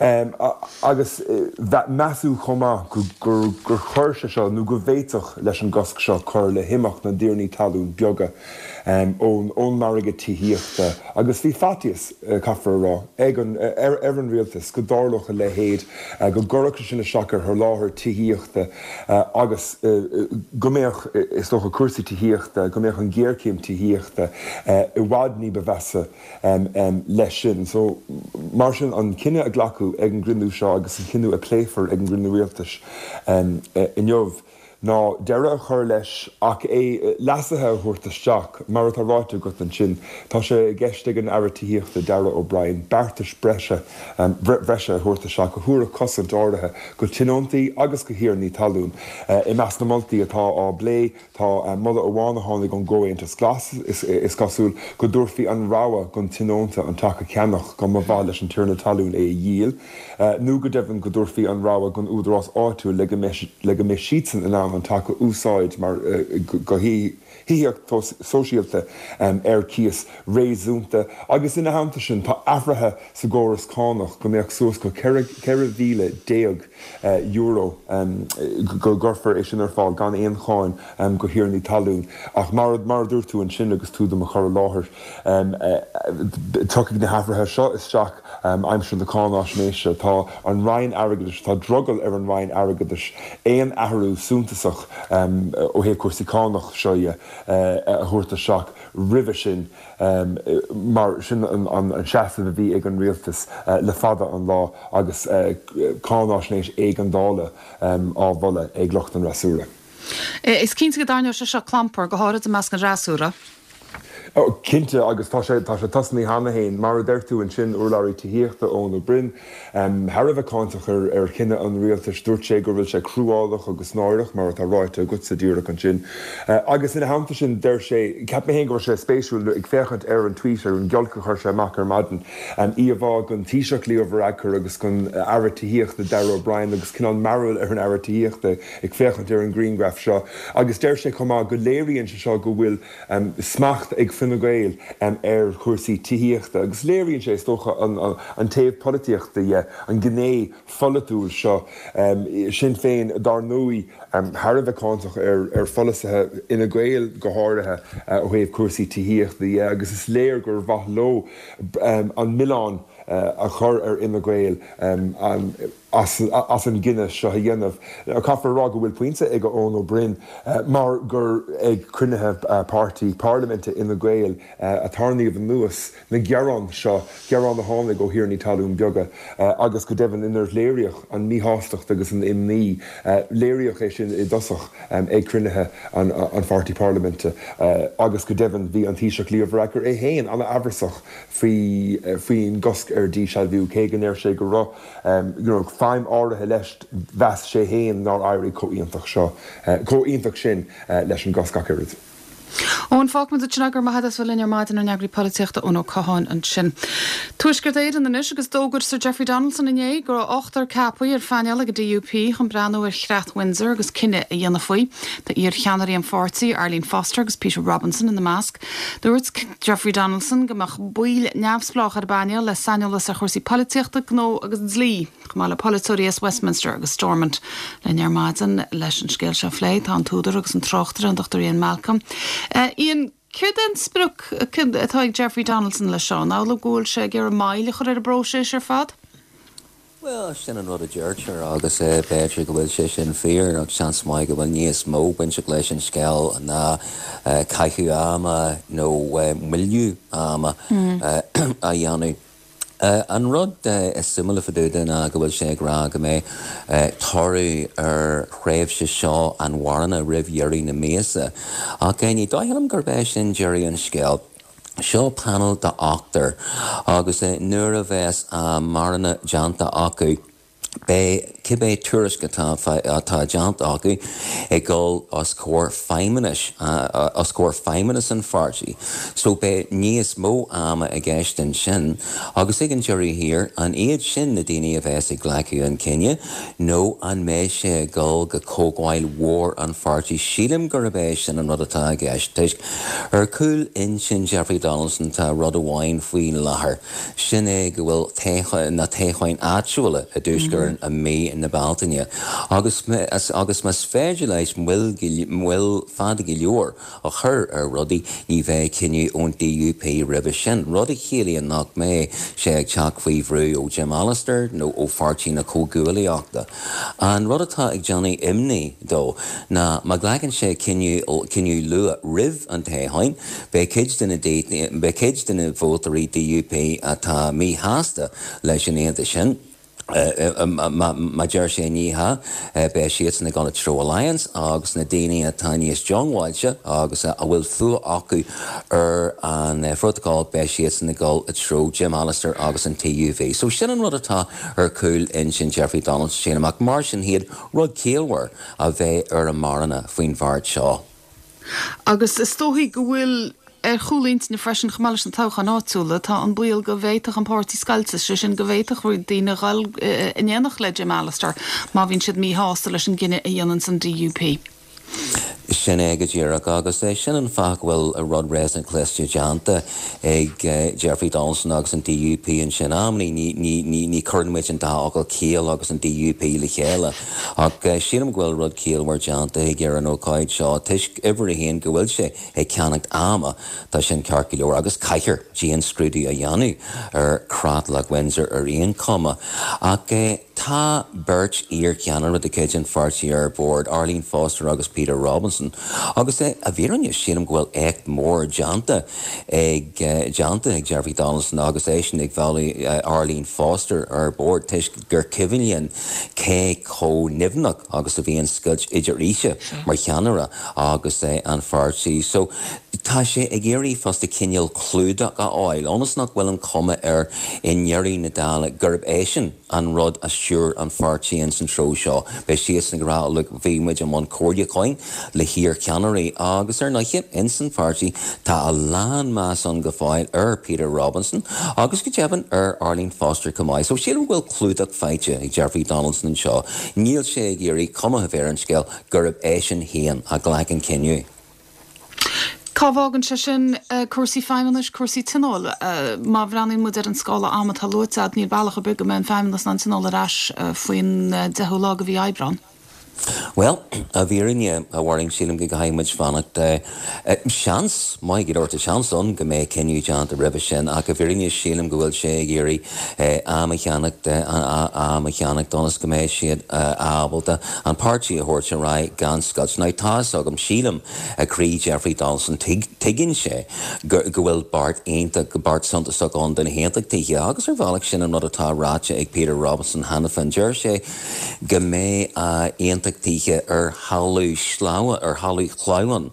Agus measadh chomh maith gur chuir sé seo, nó go bhféadfadh leis an gcosc seo cur le himeacht na dtiarnaí talún beaga ón margadh tithíochta agus bhí faitíos, caithfear a rá, ag an, ar an rialtas go dtarlódh a leithéid, go gcuirfeadh sé sin isteach ar sholáthar tithíochta agus go mbeadh, is dócha, cúrsaí tithíochta, go mbeadh an ghéarchéim tithíochta i bhfad ní ba mheasa leis sin. So, mar sin, an cinneadh a glacadh ag an gcruinniú seo agus an cinneadh a pléifear ag an gcruinniú rialtais inniu, ná deireadh a chur leis ach é leasuithe a thabhairt isteach. Mar atá ráite agat ansin, tá sé i gceist ag an Aire Tithíochta Darragh O'Brien beartais breise bhreise a thabhairt isteach a thabharfadh cosaint áirithe go tionóntaí agus go thiarnaí talún. I measc na moltaí atá á bplé tá moladh amháin a tháinig ón gComhaontas Glas, is cosúil, go dtabharfaí an rogha gon tionónta an teach a cheannach dá mba mhaith leis an tiarna talún é a dhíol. nó go deimhin go dtabharfaí an rogha don údarás áitiúil le go mbeidh le go mbeidh siadsan in ann an teach a úsáid mar go thithíocht sóisialta ar cíos réasúnta agus ina theannta sin tá athruithe sa gcóras cánach go mbeadh suas go €14,000 go gcuirfear é sin ar fáil gan aon cháin go thiarnaí talún ach mar mar a dúirt tú ansin agus tú do mo chur i láthair tiocfaidh na hathruithe seo isteach Aimsir na cáináisnéise, tá an Roinn Airgeadais, tá drogall ar an Roinn Airgeadais aon athrú suntasach ó thaobh cúrsaí cánach seo dhe a thabhairt isteach roimhe sin mar sin an seasamh a bhí ag an Rialtas le fada an lá agus cáináisnéis éigeandála á mholadh ag lucht an fhreasúra. Is cinnte go dtarraingeoidh sé seo clampar, go háirid i measc an fhreasúra. Ó, cinnte, agus tá sé, tá sé tosnaithe cheana féin. Mar a deir tú ansin, urlabhraí tithíochta, Eoin Ó Broin, thar a bheith cáinteach ar, ar chinneadh an rialtais. Dúirt sé go bhfuil sé cruálach agus náireach, mar atá ráite agatsa díreach ansin. Agus ina theannta sin, deir sé, cheap mé féin go raibh sé spéisiúil, ag féachaint ar an tweet, ar an ghiolc a chuir sé amach ar maidin, íomhá den Taoiseach Leo Varadkar agus den Aire Tithíochta Darragh O'Brien agus cineál mearbhall ar an Aire Tithíochta ag féachaint ar an ghrianghraf seo. Agus deir sé chomh maith go léiríonn sé seo go bhfuil smacht ag Fine Gael ar chúrsaí tithíochta agus léiríonn sé, is dócha, an taobh polaitíochta dhe, an ghné pholaitiúil seo. Sinn Féin, dár ndóigh, thar a bheith cáinteach ar pholasaithe Fhine Gael go háirithe ó thaobh cúrsaí tithíochta dhe agus is léir gur mhaith leo an milleán a chur ar Fhine Gael. as an gcinneadh seo a dhéanamh. Caithfear a rá go bhfuil pointe ag Eoin Ó Broin mar gur ag cruinnithe páirtí parlaiminte Fhine Gael a tarraingíodh anuas na gearáin seo, gearáin a tháinig ó thiarnaí talún beaga agus go deimhin inar léiríodh an mhíshástacht agus an imní. Léiríodh é sin i dtosach ag cruinnithe an pháirtí parlaiminte agus go deimhin bhí an Taoiseach Leo Varadkar é féin an-amhrasach faoin gcosc ar dhíshealbhú cé go ndeir sé go raibh you know feidhm áirithe leis, mheas sé féin nár éirigh chomh iontach seo, chomh iontach sin leis an gcosc ach oiread. Eoin, fágfaimid ansin é, go raibh maith agat as bheith linn ar maidin, ár n-eagraí polaitíochta Eoin Ó Catháin ansin. Tuaisceart Éireann anois agus d'fhógair Sir Jeffrey Donaldson inné go raibh ochtar ceaptha ar phainéal ag an DUP chun breathnú ar Chreat Windsor agus cinneadh a dhéanamh faoi. Tá iar-cheannairí an pháirtí, Arlene Foster agus Peter Robinson ina measc. Dúirt Jeffrey Donaldson go mbeadh baill neamhspleách ar an bpainéal le saineolas ar chúrsaí polaitíochta, gnó agus dlí. Chomh maith le polaiteoirí as Westminster agus Stormont. Linn ar maidin leis an scéal seo a phlé tá an t-údar agus an tráchtaire, an Dr Ian Malcolm. Ian, céard é an sprioc atá ag Jeffrey Donaldson leis seo? An amhlaidh go bhfuil sé ag iarraidh moill a chur ar an bpróiseas ar fad? Bhuel, sin an rud a deirtear agus b'fhéidir go bhfuil sé sin fíor ach seans maith go bhfuil níos mó bainteach leis an scéal ná caitheamh ama nó moilliú ama a dhéanamh. An rud is suimiúla fá dtaobh de ná go bhfuil sé ag rá go mbeidh toradh ar thréimhse seo an mharana roimh dheireadh na míosa. Ach ní dóigh liom gurb é sin deireadh an scéil. Seo panel de ochtar agus nuair a bheas a marana déanta acu, Beidh cibé tuairisc atá atá déanta acu ag dul os comhair feidhmeannais, os comhair feidhmeannas an pháirtí. So beidh níos mó ama i gceist ansin agus ag an deireadh thiar, an iad sin na daoine a bheas ag glacadh an cinneadh nó an mbeidh sé ag dul go comhdháil mhór an pháirtí? Sílim gurb é sin an rud atá i gceist toisc ar chúl intinn Jeffrey Donaldson tá rud amháin faoi láthair. Sin é go bhfuil na toghcháin áitiúla i dTuaisceart Éireann i mí na Bealtaine agus agus más féidir leis moill moill fada go leor a chur ar rudaí ní bheidh cinneadh ón DUP roimhe sin, rud a chiallaíonn nach mbeidh sé ag teacht faoi bhrú ó Jim Allister nó ó Pháirtí na Comhghuaillíochta. An rud atá ag déanamh imní dó ná má ghlacann sé cinneadh cinneadh luath roimh an toghchán, Beidh cuid de na beidh cuid de na vótóirí DUP atá míshásta leis an aontas sin. Má deir sé ní hea, beidh siadsan ag dul i dtreo Alliance agus na daoine atá níos diongbháilte agus a bhfuil fuath acu ar an Phrótacal, beidh siadsan ag dul i dtreo Jim Allister agus an TUV. So sin an rud atá ar chúl intinn Jeffrey Donaldson, sílim, ach mar sin féin, rud ciallmhar a bheidh ar an marana faoin bheart seo. Agus is dóichí go bhfuil ar chúl intinne freisin, chomh maith leis na toghcháin áitiúla, tá an baol go bhféadfadh an páirtí scoilteadh, sé sin go bhféadfadh roinnt daoine a dhul in éineacht le Jim Allister má bhíonn siad míshásta leis an gcinneadh a dhéananns an DUP. Sin é go díreach, agus sin an fáth go bhfuil rud réasúnta cliste déanta ag Jeffrey Donaldson agus an DUP ansin. Amannaí ní chuireann muid an dá fhocal ciall agus an DUP le chéile. Ach sílim go bhfuil rud ciallmhar déanta aige ar an ócáid seo toisc, uimhir a haon, go bhfuil sé ag ceannacht ama, tá sin ceart go leor, agus caithfear dianscrúdú a dhéanamh ar Chreatlach Windsor ar aon chuma. Ach tá beirt iar-cheannaire de chuid an pháirtí ar bord, Arlene Foster agus Peter Robinson, agus i bhfírinne sílim go bhfuil éacht mór déanta ag déanta ag Jeffrey Donaldson agus eisean ag mhealladh Arlene Foster ar bord toisc gur cuimhin linn cé chomh nimhneach agus a bhí an scoilt idir ise mar cheannaire agus an pháirtí. So tá sé ag iarraidh fosta cineál clúdach a fháil ionas nach bhfuil an chuma air i ndeireadh na dála gurb eisean an rud a stiúir an pháirtí ins an treo seo. Beidh siadsan ag rá look bhí muid i mbun comhairliúcháin le hiar-cheannairí agus ar ndóighe ins an pháirtí tá a lán meas ann go fóill ar Peter Robinson agus go deimhin ar Arlene Foster chomh maith. So sílim go bhfuil clúdach faighte ag Jeffrey Donaldson anseo. Níl sé ag iarraidh cuma a bheith ar an scéal gurb eisean féin a ghlac an cinneadh. Cá bhfágann sé sin cúrsaí feidhmeannais, cúrsaí tionóil? Má bhreathnaíonn muid ar an scála ama atá luaite agat, níl bealach ar bith go mbeidh an Feidhmeannas in ann tionól ar ais faoin 10ú lá de mhí Aibreán. Bhuel, i bhfírinne, a Mháirín, sílim go gcaithfidh muid fanacht. Seans maith go leor, tá seans ann go mbeidh cinneadh déanta roimhe sin, ach i bhfírinne sílim go bhfuil sé ag iarraidh am a cheannacht, am a cheannacht ionas go mbeidh siad ábalta an páirtí a thabhairt ar aghaidh gan scoilt. Now, tá fhios agam, sílim, i gcroí Jeffrey Donaldson, tuigeann sé go bhfuil beart iontach, beart suntasach ann do na hAontachtaithe agus ar bhealach sin an rud atá ráite ag Peter Robinson cheana féin. Deir sé go mbeidh aontachtaithe. aontachtaithe ar thalamh sleamhain, ar thalamh shleamhain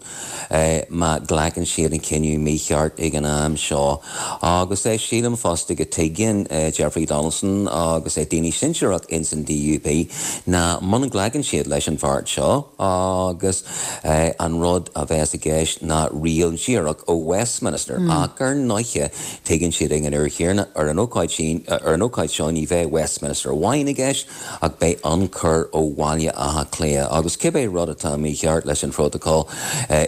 má ghlacann siad an cinneadh mícheart ag an am seo. Agus sílim fosta go tuigeann Jeffrey Donaldson agus daoine sinsearach ins an DUP ná muna nglacann siad leis an bheart seo agus an rud a bheas i gceist ná riail dhíreach ó Westminster ach ar ndóiche tuigeann siad ag an uair chéanna ar an ócáid sin, ar an ócáid seo ní bheidh Westminster amháin i gceist ach beidh ionchur ó Bhaile Átha Cliath agus cibé rud atá mícheart leis an phrótacal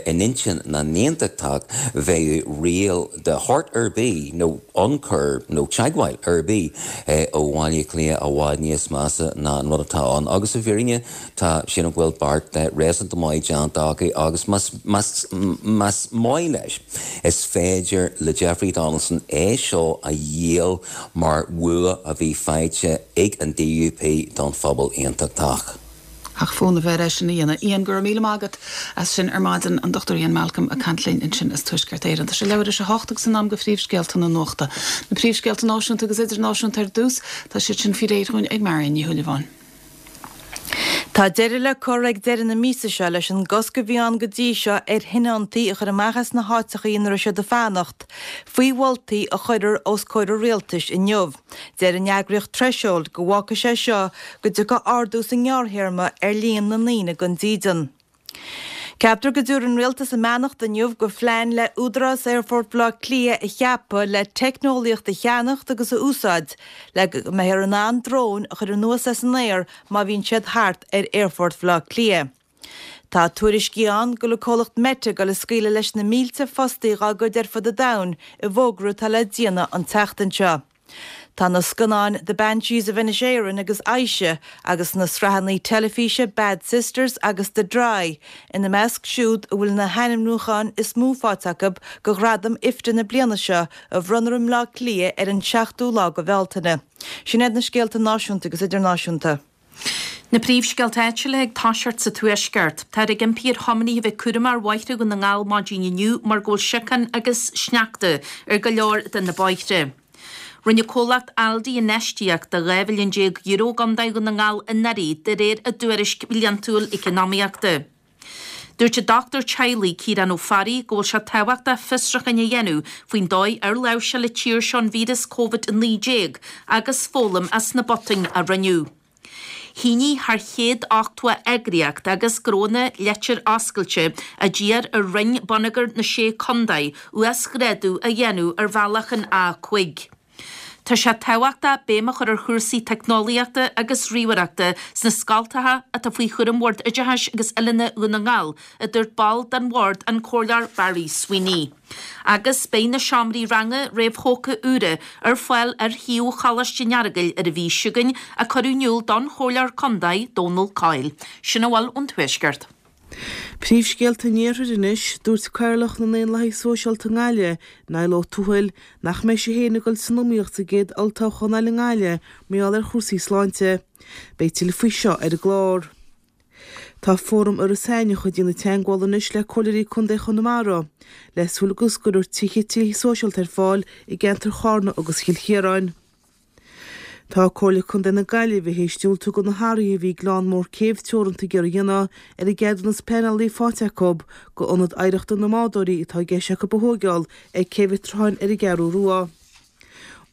in intinn na n-aontachtach bheadh riail de shórt ar bith nó ionchur nó teagmháil ar bith ó Bhaile Átha Cliath i bhfad níos measa ná an rud atá ann agus i bhfírinne tá sílim go bhfuil beart réasúnta maith déanta acu agus más más maith leis is féidir le Jeffrey Donaldson é seo a dhíol mar bhua a bhí faighte ag an DUP don phobal aontachtach. Ach fonn a bheith air é sin a dhéanamh. Ian, go raibh míle maith agat as sin ar maidin. An Dr Ian Malcolm ag caint linn ansin as Tuaisceart Éireann. Tá sé leathuair tar éis a hocht agus in am do phríomhscéalta na nuachta. Na príomhscéalta náisiúnta agus idirnáisiúnta ar dtús, tá siad sin faoi réir dhúinn ag Marion Ní Shúilleabháin. Tá deireadh le cur ag deireadh na míosa seo leis an gcosc a bhí ann go dtí seo ar thionóntaí a chur amach as na háiteachaí ina raibh siad ag fanacht, faoi mholtaí a chuirfear os comhair an rialtais inniu. Deir an eagraíocht Threshold go bhfágfaidh sé seo go dtiocfaidh ardú sa ngearrthéarma ar líon na ndaoine gan dídean. Ceaptar go dtabharfaidh an Rialtas a mbeannacht inniu go phlean le Údarás Aerfort Bhaile Átha Cliath a cheapadh le teicneolaíocht a cheannacht agus a úsáid le go mbeifear in ann dróin a chur anuas as an aer má bhíonn siad thart ar Aerfort Bhaile Átha Cliath. Tá tuairiscí ann go bhfuil an comhlacht Meta ag dul ag scaoileadh leis na mílte fostaí dhá gcuid ar fud an domhain i bhfógra atá le déanamh an tseachtain seo. Tá na scannáin The Banshees of Inisherin agus Aisha agus na sraitheanna teilifíse Bad Sisters agus The Dry ina measc siúd a bhfuil na hainmniúcháin is mó faighte acu do ghradaim IFTA na bliana seo a bhronnfar i mBleá Cliath ar an 7ú lá de Bhealtaine. Sin iad na scéalta náisiúnta agus idirnáisiúnta. Na príomhscéalta áitiúla ag toiseacht sa Tuaisceart. Táthar ag impí ar thiománaithe a bheith cúramach ar bhóithre Dhún na nGall maidin inniu mar go bhfuil siocán agus sneachta ar go leor de na bóithre. Rinne comhlacht Aldi infheistíocht de €12 mhilliún i gContae Dhún na nGall anuraidh de réir a dtuairisc bhliantúil eacnamaíochta. Dúirt an dochtúir teaghlaigh Ciarán Ó Fearraigh go bhfuil sé tábhachtach fiosrúcháin a dhéanamh faoin dóigh ar láimhseáil an tír seo an víreas Covid-19 agus foghlaim as na botúin a rinneadh. Shínigh thar 180 eagraíocht agus gnónna leitir oscailte a d'iarr ar Roinn Bonneagair na Sé Contae uasghrádú a dhéanamh ar bhealach an A5. Tá sé tábhachtach béim a chur ar chúrsaí teicneolaíochta agus ríomhaireachta sna scoltacha atá faoi chúram Bhord Oideachais agus Oiliúna Dhún na nGall, a dúirt ball den bhord, an Comhairleoir Barry Sweeney. Agus beidh na seomraí ranga réamhthógtha úra ar fáil ar shuíomh Choláiste an Earagail ar an mhí seo chugainn, a cuireadh in iúl don Chomhairleoir Contae, Dónal Coyle. Sin a bhfuil ón Tuaisceart. Príomhscéalta an Iarthair anois, Dúirt Cathaoirleach na nDaonlathaithe Sóisialta i nGaillimh, Niall Ó Tuathail, nach mbeidh sé féin ag dul san iomaíocht sa gcéad olltoghchán eile i nGaillimh mar gheall ar chúrsaí sláinte. Beidh tuilleadh faoi seo ar an gclár. Tá Fóram Iorras Aithneach ag déanamh teagmhála anois le Comhairleoirí Contae Chonamara le súil go gcuirfear tithe tithe sóisialta ar fáil i gceantar Charna agus Chill Chiaráin. Tá Comhairle Contae na Gaillimhe théis diúltú do na hathruithe a bhí Gleann Mór Céibh Teoranta ag iarraidh a dhéanamh ar an gceadúnas pleanála a bhí faighte acu do Ionad Oidhreachta na mBádóirí atá i gceist acu a thóigeáil ag Cé Mhic Tráthain ar an gCeathrú Rua.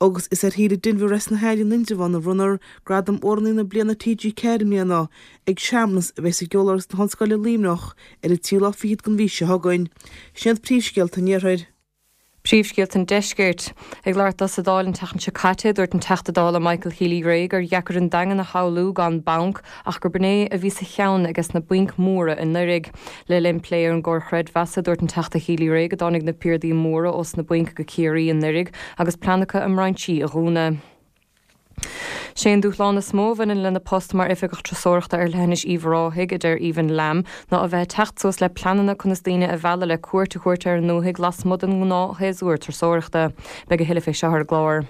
Agus is ar Shíle Denvir as na hAille in Indreabhán a bhronnfar Gradam Amhránaí na Bliana TG4 i mbliana ag searmanas a bheas i gCeoláras na hOllscoile Luimneach ar an tríú lá fichead den mhí seo chugainn. Sin iad príomhscéalta an Iarthair. Príomhscéalta an Deiscirt. Ag labhairt dó sa Dáil an tseachtain seo caite, dúirt an Teachta Dála Michael Healy-Rae gur dheacair an Daingean a shamhlú gan banc ach gurb in é a bhí sa cheann ages na bainc mhóra anuraidh. Le linn plé ar an gcomhar chreidmheasa, dúirt an Teachta Healy-Rae go dtáinig na piardaí móra ós na bainc go Ciarraí anuraidh agus plean acu a mbrainsí a dhúnadh. Sé an dúshlán is mó a bhaineann lena post mar Oifigeach Turasóireachta ar Leithinis Uíbh Ráthaigh, a deir Aoibhinn Lamb, ná a bheith ag teacht suas le pleananna conas daoine a mhealladh le cuairt a thabhairt ar an ndúthaigh lasmuigh den ngnáthshéasúr turasóireachta. Beidh a thuilleadh fé seo ar an gclár.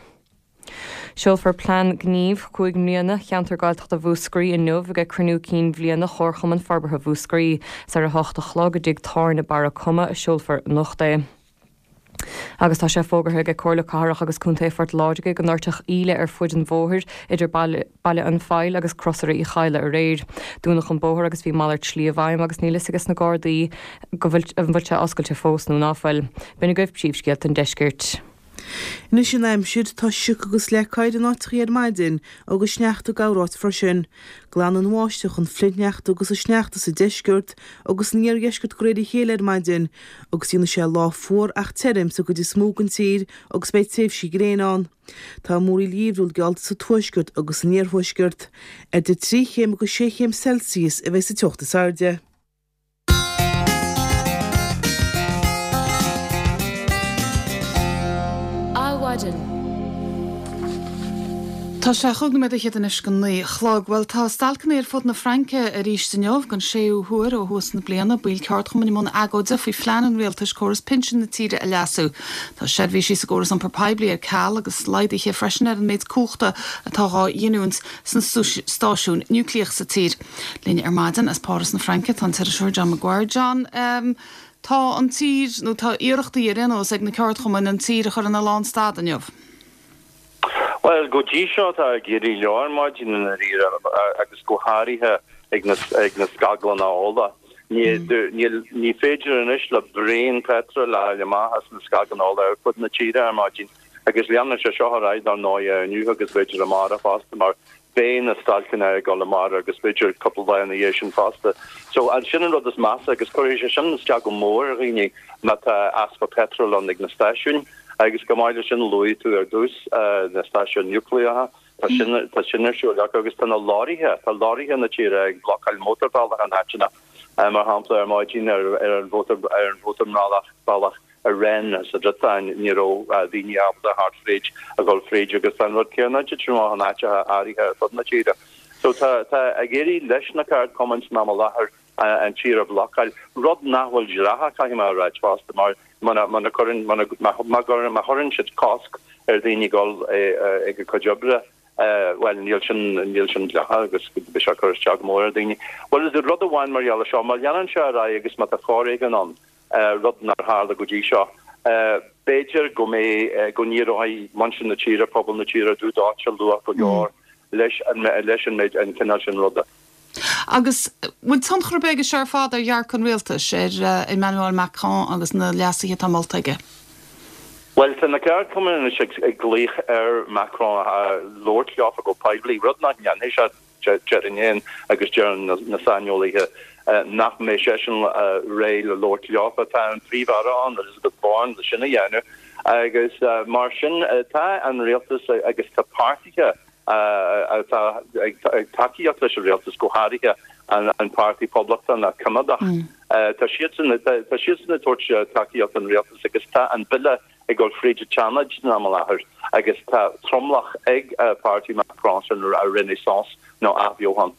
Seolfar plean gnímh chúig mbliana Cheantar Gaeltachta Mhúscraí inniu ag cruinniú cinn bhliana Chomharchumann Forbartha Mhúscraí. Is ar a hocht a chlog i dtigh tábhairne Barra Coma a seolfar anocht é. Agus tá sé fógartha ag Comhairle Cathrach agus Contae Phort Láirge go ndoirteadh íle ar fuid an bhóthair idir Baile an Phoill agus Crosaire Uí Chadhla aréir. Dúnadh an bóthar agus bhí malairt slí i bhfeidhm agus níl fhios ages na Gardaí go bhfuil an bhfuil sé oscailte fós nó ná fuil. B'in agaibh príomhscéalta an deiscirt. Anois an aimsir, tá sioc agus leac oighir in áiteachaí ar maidin agus sneachta corráit freisin. Glanfaidh an bháisteach an flichshneachta agus an sneachta sa deisceart agus san iardheisceart de réir a chéile ar maidin agus déanfaidh sé lá fuar ach tirim sa gcuid is mó den tír agus beidh tréimhsí gréine ann. Tá múraíl gheimhriúil geallta sa tuaisceart agus san iarthuaisceart. Idir 3 chéim agus 6 chéim Celsius a bheidh sa teocht is airde. Adhmhaidin. Tá sé chúig nóiméad fhichead anois go 9 a chlog. Bhuel, tá stailceanna ar fud na Fraince arís inniu, don séú huair ó thús na bliana. Baill ceardchumainn i mbun agóide faoi phlean an rialtais córas pinsin na tíre a leasú. Tá seirbhísí sa gcóras iompair poiblí ar ceal agus laghduithe freisin ar an méid cumhachta atá dhá ghiniúint sna stáisiúin núicléach sa tír. Linn ar maidin as Páras na Fraince tá an t-iriseoir John Maguire. John, tá an tír, nó tá iarrachtaí ar aon nós ag na ceardchumainn an tír a chur ina lánstad inniu. Bhuel, go dtí seo tá ag éirí leo ar maidin i ndáiríre agus go háirithe ag na ag na scaglanna ola. Ní níl ní féidir anois le braon peitril a fháil amach as na scaglanna ola ar fud na tíre ar maidin agus leanfaidh sé seo ar aghaidh dar ndóigh inniu agus b'fhéidir amárach fosta mar beidh na stailceanna ag dul amárach agus b'fhéidir cúpla lá ina dhiaidh sin fosta. So sin an rud is measa agus cuirfidh sé sin isteach go mór ar dhaoine má tá easpa peitril ann ag na stáisiúin. Agus chomh maith leis sin luaigh tú ar dtús na stáisiúin núicléacha, tá sin tá sin ar siúl acu agus tá na leoraithe, tá leoraithe na tíre ag blocáil mótarbhealach in áiteanna, mar shampla ar maidin ar ar an mhótar ar an mhótarbhealach bealach i Rennes sa Bhriotáin ní raibh daoine ábalta theacht fríd a dhul fríd agus tá an rud céanna ag titim amach in áiteacha áirithe ar fud na tíre. So tá tá ag éirí leis na ceardchumainn san am i láthair an tír a bhlocáil, rud nach bhfuil dleathach caithfidh mé a ráit fosta mar muna muna cuireann muna má má chuireann siad cosc ar dhaoine dul ag a cuid oibre bhuel níl sin níl sin dleathach agus beidh sé ag cur isteach go mór ar dhaoine. Bhuel is rud amháin mar gheall ar seo, má leanann sé ar aghaidh agus má tá foréigean ann, rud nár tharla go dtí seo. B'fhéidir go mbeidh, go n-éireoidh muintir na tíre, pobal na tíre dubh dóite luath go leor leis an, leis an méid, an cineál sin ruda. Agus bhfuil tionchar ar bith aige seo ar fad ar dhearcadh an rialtais, ar Emmanuel Macron agus na leasuithe atá molta aige? Bhuel, tá na ceardchumainn anois ag glaoch ar Macron labhairt leofa go poiblí, rud nach ndéanfaidh sé. Déarfainn féin agus deireann na saineolaithe nach mbeidh seisean réidh le labhairt leofa. Tá an Príomh-Aire ann, Elisabeth Borne, le sin a dhéanamh agus mar sin tá an rialtas agus tá páirtithe atá ag tacaíocht leis an rialtas, go háirithe an Páirtí Poblachtánach Coimeádach, tá siadsan ag tabhairt tacaíocht don rialtas agus tá an bille ag dul fríd an tSeanad san am i láthair agus tá tromlach ag páirtí Macron sin Renaissance nó Athbheochan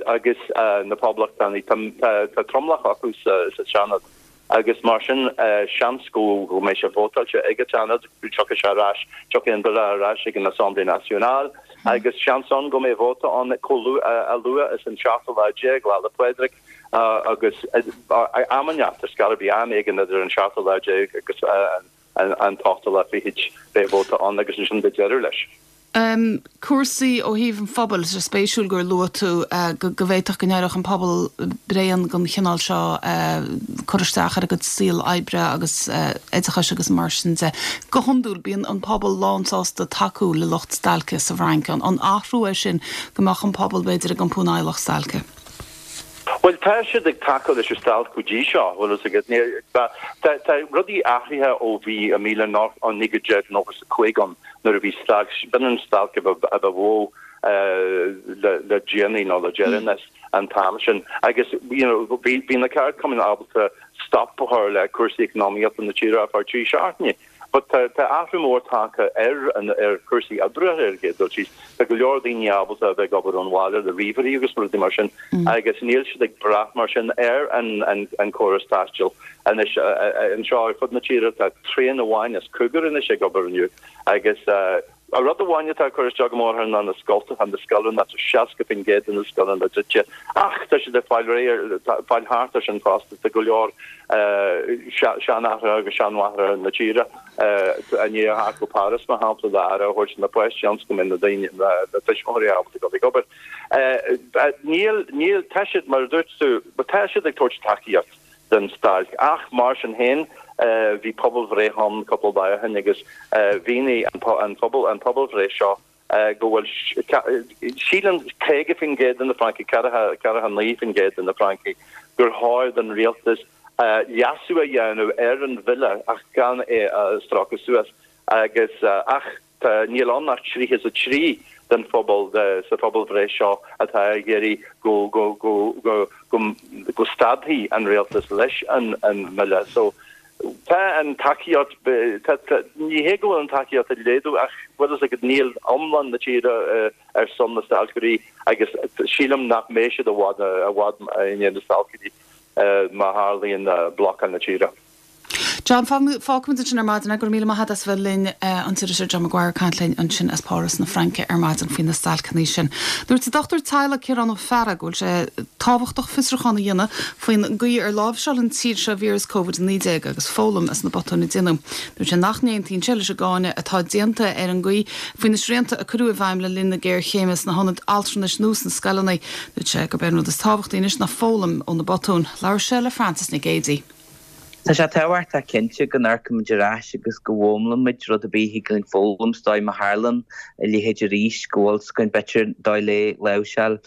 agus na Poblachtánaigh. Tá tromlach acu sa Seanad agus mar sin seans go mbeidh sé vótáilte ag an tSeanad, tiocfaidh sé ar ais, tiocfaidh an bille ar ais ag an Assemblée Nationale agus seans ann go mbeidh vóta ann chomh luath, a luath is an seachtú lá déag, Lá 'le Pádraig. Agus am inteacht ar scor ar bith, am éigin idir an seachtú lá déag agus an t-ochtú lá fichid, beidh vóta ann agus ansin beidh deireadh leis. Cúrsaí ó thaobh an phobail, tá sé spéisiúil gur luaigh tú go bhféadfadh go n-éireodh an pobal bréan den chineál seo cur isteach ar a gcuid saol oibre agus oideachais agus mar sin de. Go hiondúil bíonn an pobal lánsásta tacú le lucht stailce sa bhFrainc. An athrú é sin go mbeadh an pobal b'fhéidir ag iompú in aghaidh lucht stailce? Bhuel, tá siad ag tacú leis an stailc go dtí seo, bhfuil fhios agat. Tá, tá rudaí athraithe ó bhí i 1995 ann nuair a bhí stailc, b'in an stailc a ba mhó le, le déanaí nó le deireanas an t-am sin. Agus, you know, bhí, bhí na ceardchumainn ábalta stop a chur le cúrsaí eacnamaíochta na tíre ar feadh trí seachtaine. But tá tá athrú mór tagtha ar an ar chúrsaí oibre ar an gcéad dul síos. Tá go leor daoine ábalta a bheith ag obair ón bhaile le ríomhairí agus rudaí mar sin agus níl siad ag brath mar sin ar an an an córas taistil. Anois anseo ar fud na tíre tá traein amháin as cúigear anois ag obair inniu agus. Rud amháin atá ag cur isteach go mór orthu ná na scoltacha, na scoileanna, tá 60% de na scoileanna druidte ach tá siad ag fáil réidh, fáil thart ar sin fosta. Tá go leor seanathraithe agus seanmháithreacha na tíre i ndiaidh a theacht go Páras, mar shampla, le aire a thabhairt do na páistí ionas go mbeidh na daoine, na tuismitheoirí ábalta dul ag obair. Níl, níl, tá siad, mar a dúirt tú, tá siad ag tabhairt tacaíocht don stailc ach mar sin féin bhí pobalbhreith ann cúpla lá ó shin agus mhínigh an pobal, an pobalbhreith seo go bhfuil, síleann 50% de na Francaigh, 49% de na Francaigh gur chóir don rialtas leasú a dhéanamh ar an bhille ach gan é a stróiceadh suas agus ach tá, níl ann ach 33 den phobal sa phobalbhreith seo atá ag iarraidh go, go, go, go, go, go stadfaidh an rialtas leis an mbille. So tá an tacaíocht, tá, tá, ní hé go bhfuil an tacaíocht ag laghdú ach bhfuil fhios agat níl iomlán na tíre ar son na stailceoirí agus sílim nach mbeidh siad i bhfad, i bhfad i ndiaidh na stailceoirí má tharlaíonn blocáil na tíre. John, fágfaimid ansin ar maidin é. Go raibh míle maith agat as a bheith linn, an t-iriseoir John Maguire ag caint linn ansin as Páras na Fraince ar maidin faoi na stailceanna sin. Dúirt an dochtúir teaghlaigh Ciarán Ó Fearraigh go bhfuil sé tábhachtach fiosrúchán a dhéanamh faoin gcaoi ar láimhseáil an tír seo víreas Covid-19 agus foghlaim as na botúin a déanadh. Dúirt sé nach n-aontaíonn sé leis an gcáineadh atá déanta ar an gcaoi faoi na srianta a cuireadh i bhfeidhm le linn na géarchéime sna hionaid altranais nó sna scoileanna. Dúirt sé gurb é an rud is tábhachtaí anois ná foghlaim ó na botúin. Labhair sé le Frances Nic Géadaigh. Tá sé tábhachtach cinnte go n-amharcaimid ar ais agus go bhfoghlaimimid rud ar bith a thig linn foghlaim is dóigh má tharlaíonn a leithéid arís go bhfuil 's againn b'fhéidir dóigh le láimhseáil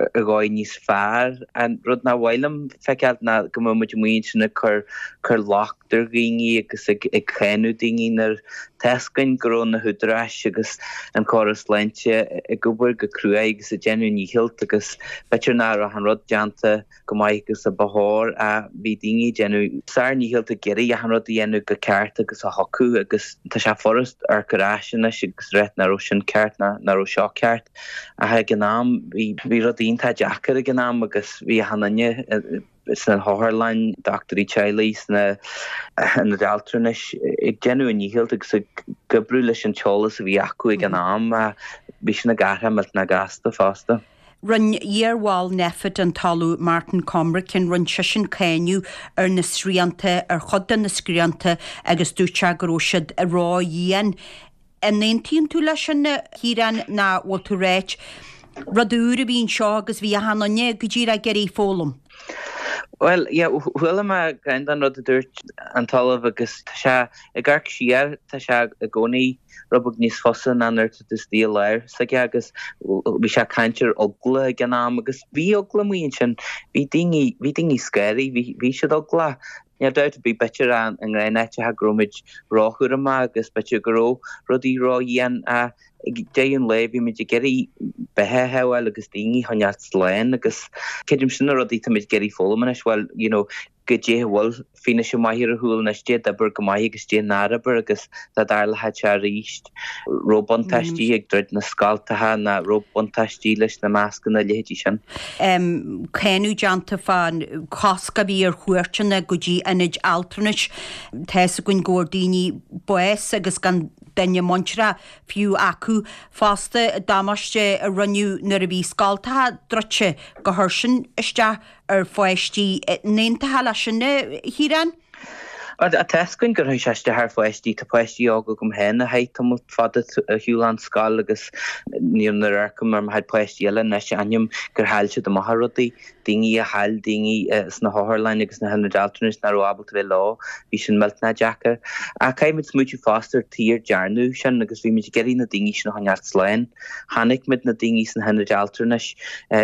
ar dhóigh níos fearr. An rud nach mhaith liom feiceáil ná go mbeadh muid amuigh ansin ag cur cur locht ar dhaoine agus ag ag cáineadh daoine nuair tá 's againn go raibh na húdaráis agus an córas sláinte ag obair go cruaidh agus ag déanamh a ndícheall agus b'fhéidir nach raibh an rud déanta go maith agus a ba chóir. Bhí daoine ag déanamh sár ndícheall ag iarraidh achan rud a dhéanamh go ceart agus a thiocfadh agus tá sé furast amharc ar ais anois agus rá nach raibh sin ceart ná nach raibh seo ceart ach ag an am bhí bhí rudaí iontach deacair ag an am agus bhí achan duine sna hotharlanna, dochtúirí teaghlaigh, sna hionaid altranais ag déanamh a ndícheall agus ag oibriú leis an t-eolas a bhí acu ag an am. Bhí sin ag athrú millteanach gasta fosta. Rinne iarbhall Nphet an tOllamh Martin Cormican, rinne seisean cáineadh ar na srianta, ar chuid de na srianta agus dúirt sé go raibh siad ró-dhian. An aontaíonn tú leis sin, a Chiaráin, nó bhfuil tú ag ráit, rud úr a bhí anseo agus bhí achan duine go díreach ag iarraidh foghlaim? Bhuel, yeah, chuala mé ceann den rud a dúirt an tOllamh agus tá sé, ag amharc siar, tá sé i gcónaí rud beag níos fusa ná nuair atá tú istigh i lár s'aige agus bhí sé ag caint ar eagla ag an am agus bhí eagla amuigh ansin, bhí daoine, bhí daoine scary, bhí, bhí siad eaglach. Níl dabht ar bith, b'fhéidir i ngnáth-áiteacha go raibh muid róchúramach agus b'fhéidir go raibh rudaí ródhian ach ag deireadh an lae bhí muid ag iarraidh beatha a shábháil agus daoine a choinneáil slán agus creidim sin na rudaí atá muid ag iarraidh foghlaim anois, bhuel, you know, goidé a bhfuil fianaise maith ar a chúl anois, goidé d'oibir go maith agus goidé nár oibir agus dá dtarlódh sé arís, raibh buntáistí ag druid na scoltacha ná raibh buntáistí leis na mascanna, a leithéidí sin. Cáineadh déanta fán chosc a bhí ar chuairteanna go dtí ionaid altranais. Tá fhios againn go bhfuair daoine bás agus gan duine muinteartha fiú acu fosta. Damáiste a rinneadh nuair a bhí scoltacha druidte gur chuir sin isteach ar pháistí. An aontófá leis sin, a Chiaráin? Tá fhios againn gur chuir sé isteach ar pháistí. Tá páistí óga agam féin a chaith tamall fada ar shiúl ón scoil agus nuair a amharcaim ar mo chuid páistí eile anois aithním gur chaill siad amach ar rudaí. Daoine a chaill daoine sna hotharlanna agus sna hionaid altranais nach raibh ábalta bheith leo, bhí sin millteanach deacair. Ach caithfidh muid smaoitiú fosta ar tuige ar dearnadh sin agus bhí muid ag iarraidh na daoine sin a choinneáil slán. Chonaic muid na daoine sna hionaid altranais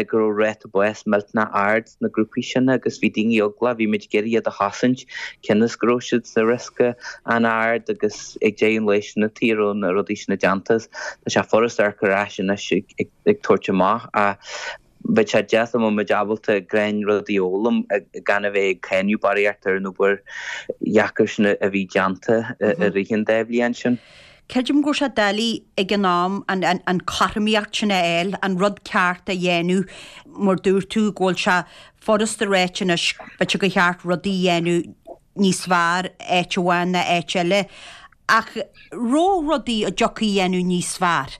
go raibh ráta báis millteanach ard sna grúpaí sin agus bhí daoine eaglach, bhí muid ag iarraidh iad a chosaint cionn is go raibh siad sa riosca an-ard agus ag deireadh an lae sin an tuige a raibh na rudaí sin déanta. Tá sé furast amharc ar ais anois ag tabhairt amach ach bheadh sé deas dá mbeadh muid ábalta gnáthrudaí a fhoghlaim gan a bheith ag cáineadh barraíocht ar an obair dheacair sin a bhí déanta i rith an dá bhliain sin. Creidim go raibh sé doiligh ag an am an chothromaíocht sin a fháil, an rud ceart a dhéanamh, mar dúirt tú go bhfuil sé furasta a ráit anois b'fhéidir gur cheart rudaí a dhéanamh níos fearr áit amháin ná áit eile. Ach raibh rudaí a dtiocfaí a dhéanamh níos fearr?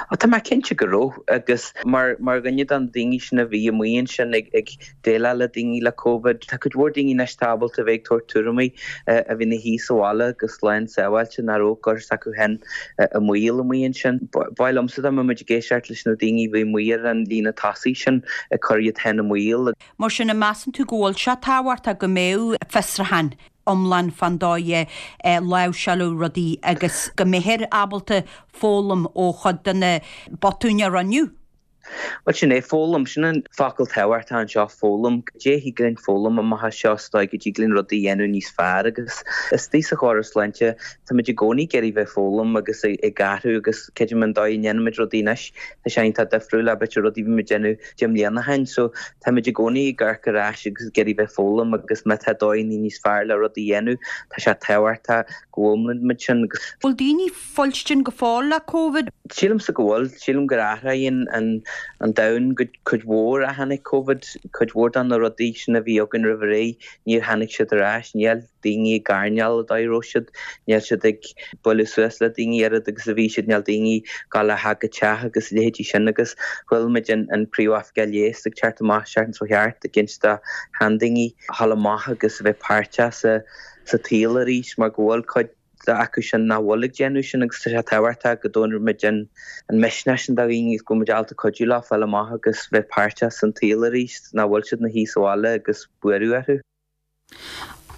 Ó tá mé cinnte go raibh agus mar mar dhuine de na daoine sin a bhí amuigh ansin ag ag déileáil le daoine le Covid, tá cuid mhór daoine anois atá ábalta a bheith ag tabhairt tuairimí a bhí ina shuí sa bhaile go slán sábháilte nach raibh ag cur s'acu féin i mbaol amuigh ansin. Ba mhaith liomsa dá mbeadh muid ag éisteacht leis na daoine a bhí amuigh ar an líne tosaigh sin ag cur iad féin i mbaol. Mar sin, an measann tú go bhfuil sé tábhachtach go mbeadh fiosrúchán iomlán fán dóigh a láimhseáladh rudaí agus go mbeifear ábalta foghlaim ó chuid de na botúin a rinneadh? Bhuel, sin é, foghlaim. Sin an focal tábhachtach anseo, foghlaim. Cad é a thig linn foghlaim amach as seo is dóigh go dtig linn rudaí a dhéanamh níos fearr agus istigh sa chóras sláinte táimid i gcónaí ag iarraidh bheith ag foghlaim agus ag athrú agus creidim an dóigh a ndéanaimid rudaí anois, tá sé iontach difriúil le b'fhéidir rudaí a bhí muid ag déanamh 10 mbliana ó shin. So táimid i gcónaí ag amharc ar ais agus ag iarraidh bheith ag foghlaim agus má tá dóigheanna níos fearr le rudaí a dhéanamh, tá sé tábhachtach go bhfoghlaimíonn muid sin. Bhfuil daoine fuilstin go fóill le Covid? Sílimse go bhfuil. Sílim gur athraigh an an domhan go cuid mhór ó tháinig Covid. Cuid mhór de na rudaí sin a bhí againn roimh ré, níor tháinig siad ar ais. Níl daoine ag airneál an dóigh a raibh siad, níl siad ag bualadh suas le daoine oiread agus a bhí siad, níl daoine ag gabháil ó theach go teach agus a leithéidí sin agus chuala muid an an Príomhoifigeach Leighis ag teacht amach an tseachtain seo thart ag inse do sheandaoine a dhul amach agus a bheith páirteach sa sa tsaol arís mar go bhfuil cuid acu sin nach bhfuil ag déanamh sin agus tá sé tábhachtach go dtabharfaidh muid an misneach sin do dhaoine agus go bhfuil muid ábalta cuidiú leo fáil amach agus bheith páirteach san tsaol arís, nach bhfuil siad ina shuí sa bhaile agus buaireamh orthu.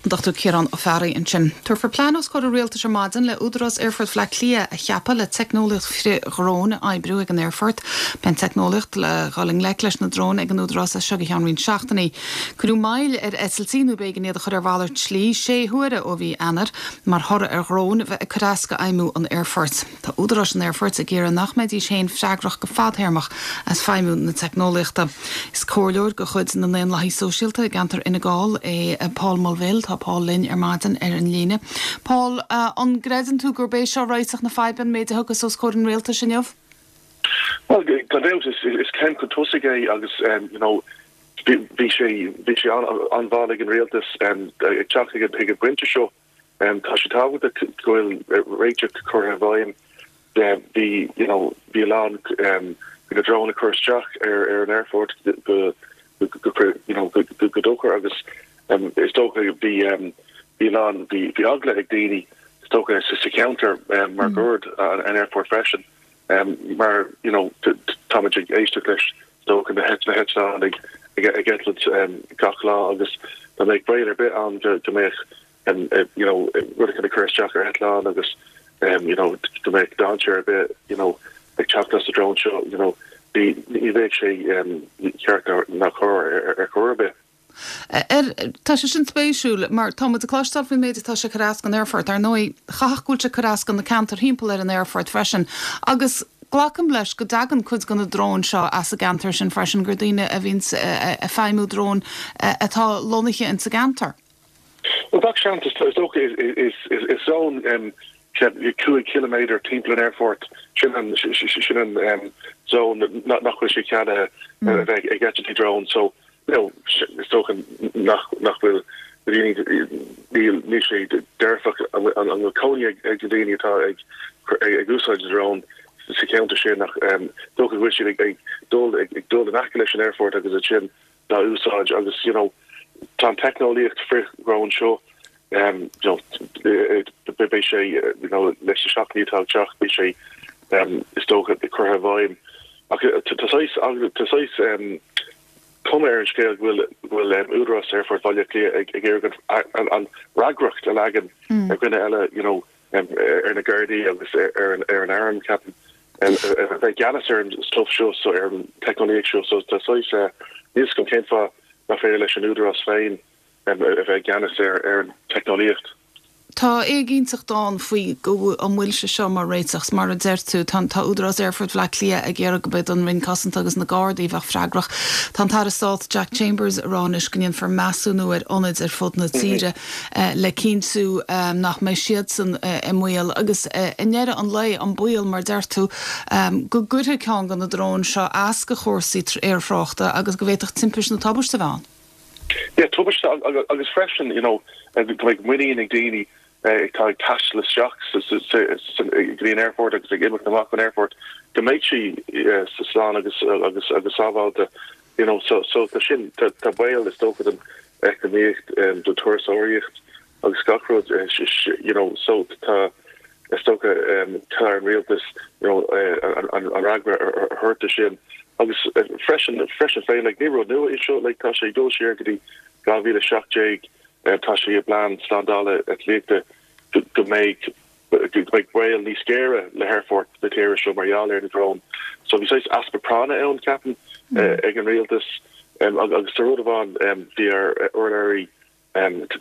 An Dr Ciarán Ó Fearraigh ansin. Tabharfar plean os comhair an Rialtais ar maidin le Údarás Aerfort Bhaile Átha Cliath a cheapadh le teicneolaíocht frith-dhrón a oibriú ag an aerfort. Beidh an teicneolaíocht le dhul i ngleic leis na dróin ag an Údarás as seo go ceann roinnt seachtainí. Cuireadh moill ar eitiltí nó b'éigean iad a chur ar mhalairt slí sé huaire ó mhí Eanáir mar thoradh ar dhróin a bheith ag cur as go fheidhmiú an aerfoirt. Tá údaráis an aerfoirt ag iarraidh nach mbeidís féin freagrach go fadthéarmach as feidhmiú na teicneolaíochta. Is comhairleoir de chuid na nDaonlathaí Sóisialta i gceantar Fhine Gall é Paul Mulvihill. Tá Paul linn ar maidin ar an líne. Paul, an gcreideann tú gurb é seo réiteach na faidhbe, an méid a thiocfas os comhair an rialtais inniu? Bhuel, gan dabht, is céim chun tosaigh é agus, you know, bhí sé bhí sé an-mhall ag an rialtas ag teacht chuig an bpointe seo. Tá sé tábhachtach go bhfuil réiteach curtha i bhfeidhm. Bhí you know bhí a lán bhí na dróin ag cur isteach ar ar an aerfort go go you know go go dochar agus is dócha bhí bhí a lán bhí bhí eagla ag daoine is dócha sa cheantar máguaird an aerfort freisin. Mar you know táimid ag éisteacht leis is dócha na heitleáin ag ag eitilt gach lá agus dá mbeadh baol ar bith ann go go mbeadh you know rud éicint ag cur isteach ar eitleán agus you know go mbeadh dainséar ar bith you know ag teacht as an drón seo you know ní ní bheadh sé ceart ná cóir ar chor ar bith. Ar, tá sé sin spéisiúil, mar tá muid ag cloisteáil faoin méid atá sé ag cur as don aerfort. Ar ndóigh, chaithfeadh go bhfuil sé ag cur as do na ceantair thimpeall ar an aerfort freisin. Agus glacaim leis go dtagann cuid de na dróin seo as an gceantar sin freisin, gur daoine a bhíonns ag feidhmiú drón atá lonnaithe ins an gceantar. Bhuel, gach seans, is dócha, is zón 5 chiliméadar timpeall an aerfoirt, sin an sin an zón nach bhfuil sé ceadaithe a bheith ag eitiltí drón. So, you know, is dócha nach nach bhfuil na daoine, níl níl sé dearfach an bhfuil cónaí ag na daoine atá ag ag úsáid na drón sa cheantar sin ach dócha go bhfuil siad ag dul ag dul in aice leis an aerfort agus ansin dá úsáid agus you know tá an teicneolaíocht frith-dhrón seo you know beidh sé you know leis na seachtainí atá ag teacht beidh sé is dócha curtha i bhfeidhm ach tá saghas tá saghas cuma ar an scéal go bhfuil go bhfuil Údarás Aerfort Bhaile Átha Cliath ag ag iarraidh an an fhreagracht a leagan ar dhuine eile you know ar na Gardaí agus ar an ar an arm ceapaim a bheith i gceannas ar an stuff seo so ar an teicneolaíocht seo so tá saghas níl a fhios agam cén fáth nach féidir leis an Údarás féin a bheith i gceannas ar ar an teicneolaíocht. Tá éiginnteacht ann faoi go an bhfuil sé seo mar réiteach. Mar a deir tú, tá tá Údarás Aerfort Bhaile Átha Cliath ag iarraidh go mbeidh an Roinn Cosanta agus na Gardaí a bheadh freagrach. Tá an tAire Stáit Jack Chambers ag rá anois go ndéanfar measúnú ar ionaid ar fud na tíre le cinntiú nach mbeidh siadsan i mbaol. Agus i ndeireadh an lae, an baol, mar a deir tú, go gcuirfidh ceann de na dróin seo as do chúrsaí aerthráchta agus go bhféadfadh timpiste nó tubaiste a bheith ann. Yeah, tubaiste agus freisin, you know, go mbeidh muinín ag daoine. atá ag taisteal isteach go dtí an aerfort agus ag imeacht amach ón aerfort, go mbeidh sí slán agus agus agus sábháilte, you know. So so tá sin, tá baol is dócha don eacnamaíocht, don turasóireacht agus gach rud, you know, so tá is dócha tá ar an rialtas, you know, an fhreagra a thabhairt do sin. Agus freisin, freisin féin, like, ní rud nua é seo, like, tá sé ag dul siar go dtí 2017, Tá sé i bplean slándála eitlíochta go mbeidh go mbeidh baol níos géire le haerfort na tíre seo mar gheall ar na dróin. So bhí saghas easpa práinne ann, ceapaim, ag an rialtas. Agus tá rud amháin, bhí ár urlabhraí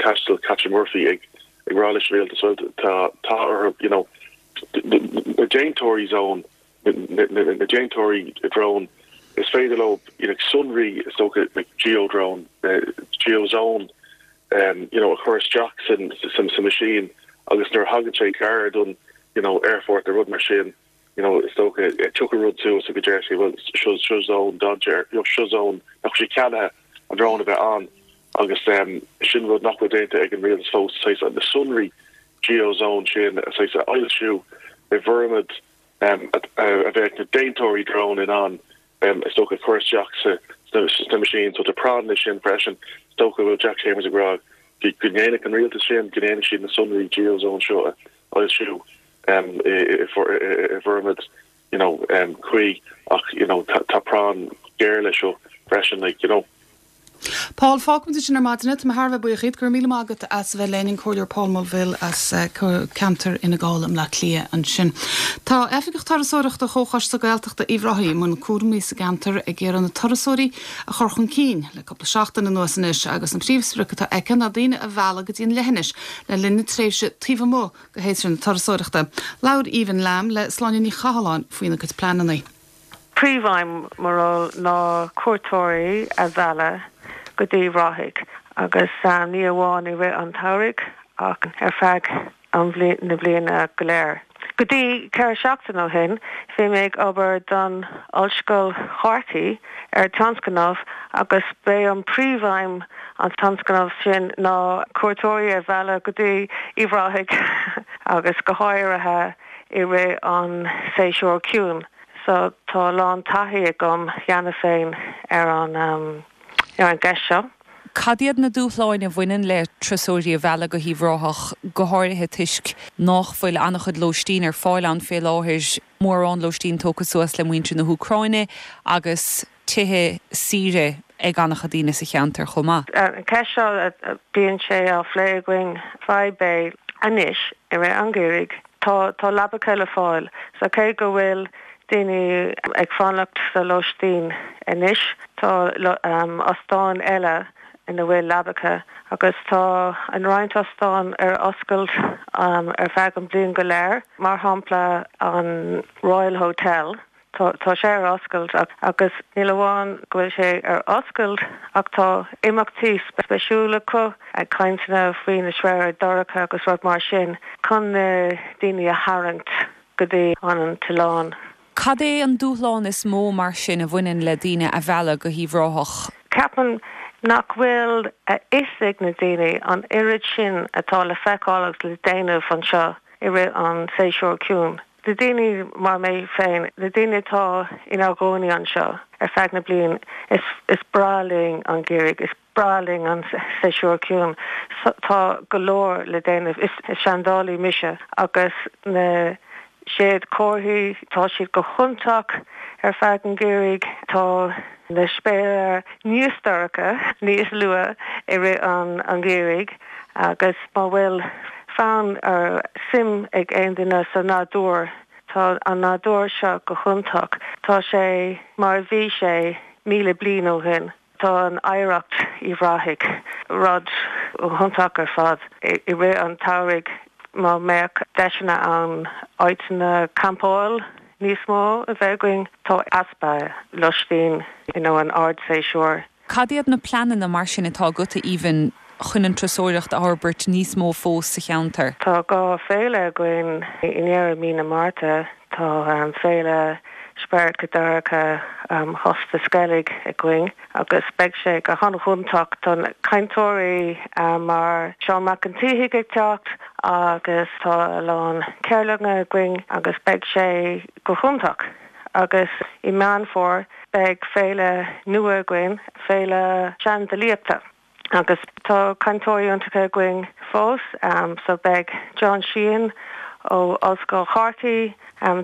taistil Catherine Murphy ag rá leis an rialtas, bhuel tá tá orthu, you know, na déantóirí zón na déantóirí drón, is féidir leo you know sonraí is dócha like geo-drone, geo-zone you know a chur isteach san sa machine agus nuair a thagann sé gar don you know aerfort nó rud mar sin you know is dócha tiocfaidh rud suas agus deir sé bhuel seo seo zone dainséir you know seo zone nach bhfuil sé ceadaithe an drón a bheith ann agus sin rud nach bhfuil déanta ag an rialtas fós saghas na sonraí geo-zone sin saghas a fhoilsiú i bhformaid a bheadh na déantóirí drón in ann, is dócha, cur isteach sna machines. So tá práinn leis sin freisin. Is dócha go bhfuil Jack Chambers ag rá go ndéanfadh an rialtas sin, go ndéanfadh siad na sonraí geozone seo a fhoilsiú i bhformaid you know cuí ach you know tá práinn ghéar leis seo freisin like you know. Paul, Fágfaimid ansin ar maidin é. Tá mé thar a bheith buíoch díot. Go raibh míle maith agat as a bheith linn, an Comhairleoir Paul Mulvihill as ceantar Fhine Gall i mBleá Cliath ansin. Tá Oifigeach Turasóireachta Chomhchoiste Gaeltachta Uíbh Ráthaigh i mbun cúraimí sa gceantar ag iarraidh na turasóirí a chur chun cinn le cúpla seachtain anuas anois agus an príomhsprioc atá aici ná daoine a mhealladh go dtí an leithinis le linn na tréimhse taobh amuigh de shéasúr na turasóireachta. Labhair Aoibhinn Lamb le Sláine Ní Chathalláin faoina cuid pleananna. Príomhaidhm mo ról ná cuairteoirí a mhealladh go dtí Uíbh Ráthaigh agus ní amháin i rith an tsamhraidh ach ar feadh na bliana go léir. Go dtí 4 seachtain ó shin bhí mé ag obair don Ollscoil Chorcaí ar tionscnamh agus b'é an príomhaidhm an tionscnamh sin ná cuairteoirí a mhealladh go dtí Uíbh Ráthaigh agus go háirithe i rith an séasúr ciúin so tá a lán taithí agam cheana féin ar an ar an gceist seo. Cad iad na dúshláin a bhaineann le turasóirí a mhealladh go hUíbh Ráthach, go háirithe toisc nách bhfuil an-chuid lóistín ar fáil ann fé láthair, mórán lóistín tógtha suas le muintir na hÚcráine agus tithe saoire ag an-chuid daoine sa cheantar chomh maith? An ceist seo, bíonn sé á phlé againn. Fadhb é anois i rith an gheimhridh. Tá tá leabacha le fáil so cé go bhfuil daoine ag fanacht sa lóistín anois, tá ostáin eile ina bhfuil leabacha agus tá an roinnt ostán ar oscailt ar feadh an bliain go léir, mar shampla an Royal Hotel. Tá sé ar oscailt agus níl amháin go bhfuil sé ar oscailt ach tá imeachtaí spéisiúla acu, cainteanna faoi na sraotha dorcha agus rud mar sin chun na daoine a tharraingt go dtí an t-oileán. Cad é an dúshlán is mó mar sin a bhaineann le daoine a mhealladh go hUíbh Ráthach? Ceapaim nach bhfuil a fhios ag na daoine an oiread sin atá le feiceáil agus le déanamh anseo i rith an séasúr ciúin. Na daoine mar mé féin, na daoine atá inár gcónaí anseo ar feadh na bliain, is is breá linn an geimhreadh, is breá linn an séasúr ciúin. Tá go leor le déanamh. Is seandálaí mise agus na séadchomharthaí, tá siad go hiontach ar feadh an gheimhridh. Tá na spéire níos dorcha níos luath i rith an gheimhridh agus má bhfuil fonn or suim ag aon duine sa nádúr, tá an nádúr seo go hiontach. Tá sé mar a bhí sé 1,000 bliain ó shin. Tá an oidhreacht Uíbh Ráthaigh, rud iontach ar fad. I rith an tsamhraidh má mbeadh deiseanna ann áiteanna campáil níos mó a bheith againn, tá easpa lóistín you know an ardséasúr. Cad iad na pleananna mar sin atá agat, a Aoibhinn, chun an turasóireacht a fhorbairt níos mó fós sa cheantar? Tá 2 féile againn i ndeireadh mí na Márta. Tá féile. Spiorad go Dorcha Chósta Sceilg againn agus beidh sé go han-iontach. Tá cainteoirí mar Seán Mac an tSíthigh ag teacht agus tá a lán ceardlanna againn agus beidh sé go hiontach. Agus i Meán Fómhair beidh féile nua againn, Féile Seandalaíochta. Agus tá cainteoirí iontacha againn fós, so beidh John Sheehan ó Ollscoil Chorcaí,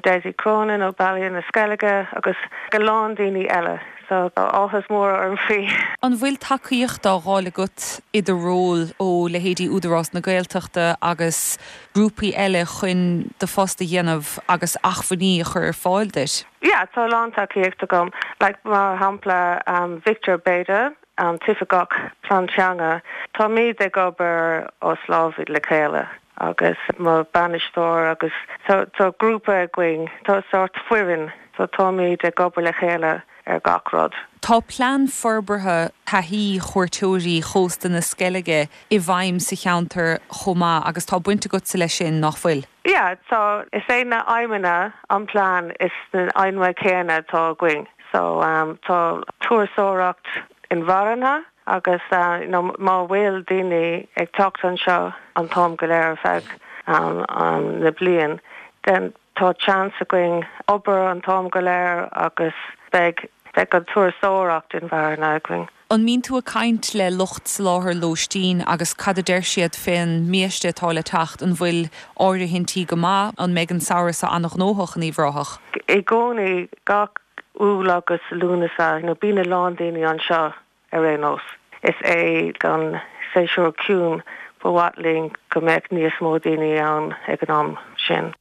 Dessie Cronin ó Baile na Sceilge agus a lán daoine eile, so tá áthas mór orm faoi. An bhfuil tacaíocht á fháil agat i do ról ó leithéidí Údarás na Gaeltachta agus grúpaí eile chun do phost a dhéanamh agus acmhainní a chur ar fáil duit? Yeah, tá a lán tacaíocht agam, like mar shampla Victor Bayda, an tOifigeach Plean Teanga, táimid ag obair os lámh le chéile agus mo bainisteoir agus tá grúpa againn, tá sórt foireann, so táimid ag obair le chéile ar gach rud. Tá plean forbartha taithí chuairteoirí Chósta na Sceilge i bhfeidhm sa cheantar chomh maith agus tá baint agatsa leis sin, nach bhfuil? Yeah, tá. Is é na aidhmeanna an plean is na aidhmeanna céanna atá againn. So tá turasóireacht inmharthana agus you know má bhfuil daoine ag teacht anseo an t-am go léir ar feadh na bliain then tá chance againn obair an t-am go léir agus beidh beidh an turasóireacht inmharthana againn. An mbíonn tú ag caint le lucht soláthair lóistín agus cad a deir siad fén mbiaiste atá le teacht? An bhfuil áirithintí go maith? An mbeidh an samhradh seo an-ghnóthach in Uíbh Ráthach? I gcónaí, gach Iúil agus Lúnasa, you know, bíonn a lán daoine anseo ar aon nós. Is é an séasúr ciúin, ba mhaith linn go mbeadh níos mó daoine ann ag an am sin.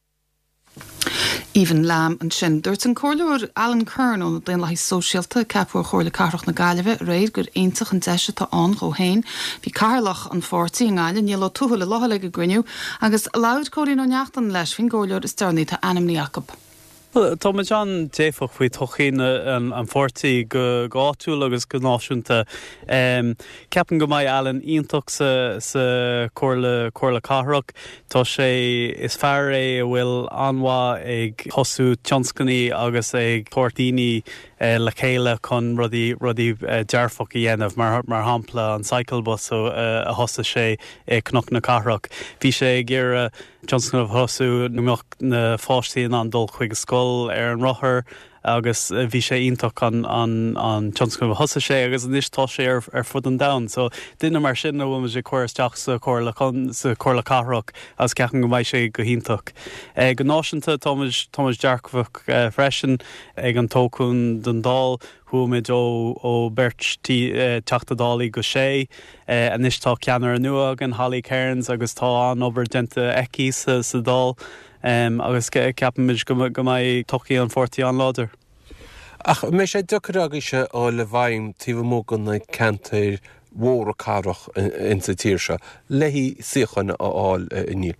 Aoibhinn Lamb ansin. Dúirt an Comhairleoir Alan Curran ó na Daonlathaigh Sóisialta, a ceapadh ar Chomhairle Cathrach na Gaillimhe aréir, gur iontach an deis atá ann dhó féin. Bhí Cathaoirleach an pháirtí i nGaillimh, Niall Ó Tuathail, i láthair ag an gcruinniú agus labhair Cóilín Ó Neachtain leis faoin gcomhairleoir is deireanaí atá ainmnithe acu. Tá muid an-dearfach faoi todhchaí an pháirtí go háitiúil agus go náisiúnta. Ceapaim go mbeidh Alan iontach sa Chomhairle Cathrach. Tá sé, is fear é a bhfuil an-mhaith ag tosú tionscnaí agus ag tabhairt daoine le chéile chun rudaí, rudaí dearfach a dhéanamh, mar, mar shampla an cycle bus a thosaigh sé i Cnoc na Cathrach. Bhí sé ag iarraidh tionscnamh a thosú go mbeadh na pháistí in ann dul chuig an scoil ar an rothar, agus bhí sé iontach an an tionscnamh a thosaigh sé agus anois tá sé ar ar fud an domhain. So duine mar sin a bhfuil muid ag cur isteach sa chomhairle sa chomhairle cathrach agus ceapaim go mbeidh sé go hiontach. Go náisiúnta tá muid tá muid dearfach freisin ag an toghchán don Dáil chuaigh muid ó ó beirt Teachta Dálaí go sé. Anois tá ceannaire nua againn Holly Cairns agus tá an-obair déanta aici sa sa Dáil. Agus ceapaimid go mbeidh todhchaí an pháirtí an-láidir. Ach an mbeidh sé deacair agaibhse a dhul i bhfeidhm taobh amuigh de na ceantair mhóra cathrach insa tír seo le suíocháin a fháil, a Niall?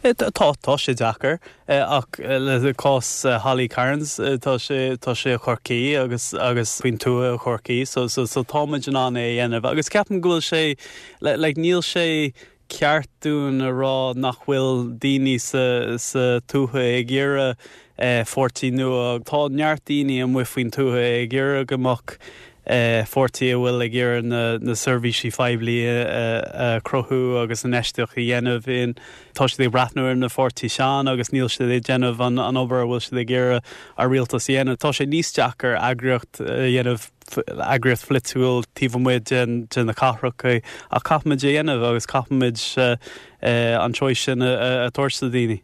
Tá, tá sé deacair. Ach le cás Holly Cairns, tá sé, tá sé i Chorcaí agus, agus faoin tuath i Chorcaí so, so, so tá muid in ann é a dhéanamh. Agus ceapaim go bhfuil sé, like, níl sé, ceart dúinn a rá nach bhfuil daoine sa tuath ag iarraidh pháirtí nua. Tá neart daoine amuigh faoin tuath ag iarraidh go mbeadh pháirtí a bhfuil ag iarraidh na seirbhísí phoiblí a chruthú agus infheistíocht a dhéanamh in. Tá siad ag breathnú ar na pháirtí sean agus níl siad ag déanamh an obair a bhfuil siad ag iarraidh an rialtas a dhéanamh. Tá sé níos deacair eagraíocht a dhéanamh eagraíocht pholaitiúil taobh amuigh de na cathracha ach caithfimid a dhéanamh agus caithfimid an choice sin a thabhairt do daoine.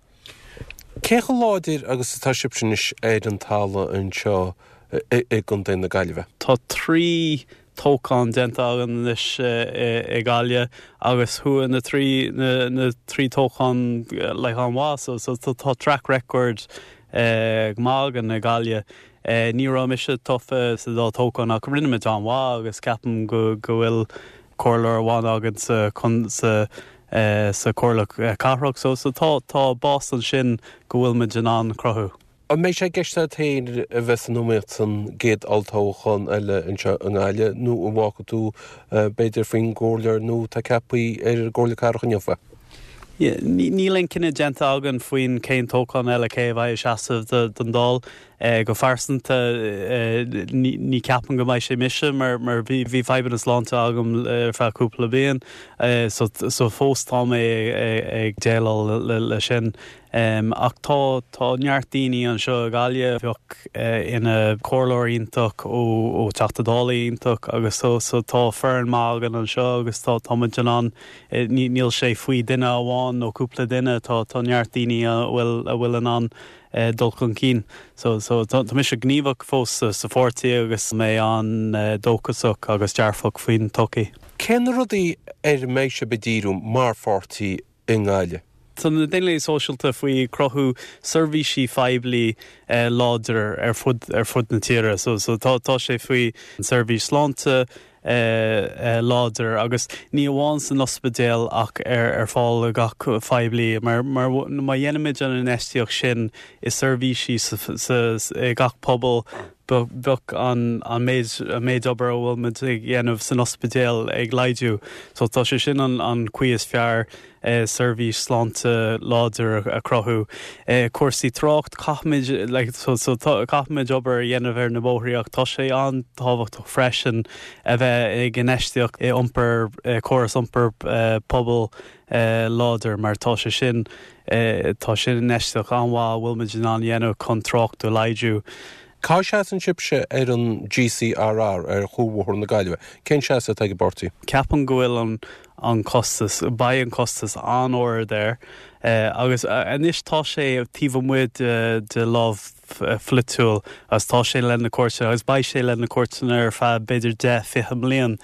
Cé chomh láidir agus atá sibhse anois ar an talamh anseo i gContae na Gaillimhe? Tá 3 toghchán déanta againn anois i Gaillimh agus chuaigh na 3 na 3 toghchán like an-mhaith so so tá track record go maith againn i Gaillimh. Ní raibh mise tofa sa dá toghchán ach rinne muid an-mhaith agus ceapaim go go bhfuil comhairleoir amháin againn sa sa sa Chomhairle Cathrach so so tá tá bás ansin go bhfuil muid in ann cruthú. An mbeidh sé i gceist agat féin a bheith san iomaíocht san gcéad olltoghchán eile anseo i nGaillimh nó an bhfágfaidh tú b'fhéidir faoin gcomhairleoir nua atá ceaptha ar an gComhairle Cathrach inniu é? Níl aon cinneadh déanta againn faoin cén toghchán eile cé a bheidh ag seasamh don Dáil. Go phearsanta, ní ceapaim go mbeidh sé mise mar mar bhí bhí fadhbanna sláinte agam ar feadh cúpla bliain so so fós tá mé ag déileáil le sin. Ach tá tá neart daoine anseo i Gaillimh a bheadh ina comhairleoir iontach ó ó Teachta Dála iontach agus so so tá foireann maith againn anseo agus tá tá muid in ann níl sé faoi duine amháin nó cúpla duine tá tá neart daoine a bhfuil a bhfuil in ann dul chun cinn. So, so, tá mise gníomhach fós sa pháirtí agus mé an-dóchasach agus dearfach faoin todhchaí. Cé na rudaí ar a mbeidh sibh ag díriú mar pháirtí i nGaillimh? Tá na Daonlathaigh Sóisialta faoi cruthú seirbhísí phoiblí láidir ar fud ar fud na tíre. So, so tá tá sé faoi seirbhís sláinte, láidir agus ní amháin san ospidéal ach ar fáil do gach phoiblí mar má dhéanaimid an infheistíocht sin i seirbhísí i gach pobal bheadh an méid an méid obair a bhfuil muid ag dhéanamh san ospidéal ag laghdú. So tá sé sin an chaoi is fearr seirbhís sláinte láidir a chruthú. Cúrsaí trácht, caithfimid like so so caithfimid obair a dhéanamh ar na bóithrí ach tá sé an-tábhachtach freisin a bheith ag infheistíocht i iompar, córas iompair pobail láidir mar tá sé sin tá sin infheistíocht an-mhaith a bhfuil muid in ann a dhéanamh chun trácht a laghdú. Cá seasann sibhse ar an GCRR, ar Chuarbhóthar na Gaillimhe? Cén seasamh atá ag an bpáirtí? Ceapaim go bhfuil an an costas, beidh an costas an-ard air agus anois tá sé taobh amuigh de lámh pholaitiúil agus tá sé le na cúirteanna agus beidh sé le na cúirteanna ar feadh b'fhéidir 10, 20 mbliain.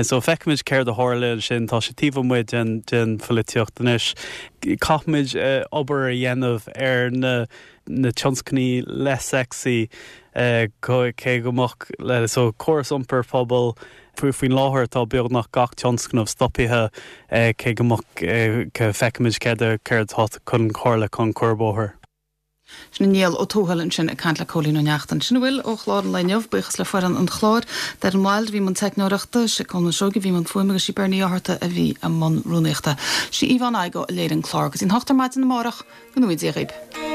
So feicfimid céard a tharla ansin, tá sé taobh amuigh den den pholaitíocht anois. Caithfimid obair a dhéanamh ar na na tionscnaimh less sexy cé go mbeadh so córas iompair pobail faoin láthair tá beagnach gach tionscnamh stoptha cé go mbeadh feicfimid céard céard atá chun tarlú chun cuarbhóthar. Sin Niall Ó Tuathail ansin ag caint le Cóilín Ó Neachtain. Sin a bhfuil ó chlár an lae inniu. Buíochas le foireann an chláir. Darren Wilde a bhí i mbun teicneoireachta, sé Colman Seoighe a bhí i mbun fuaime agus sí Bernie Ó hArta a bhí i mbun rúnaíochta. Sí Yvonne Igoe a léirigh an clár. Go dtí an hocht ar maidin amárach, go ngnóthaí Dia dhaoib.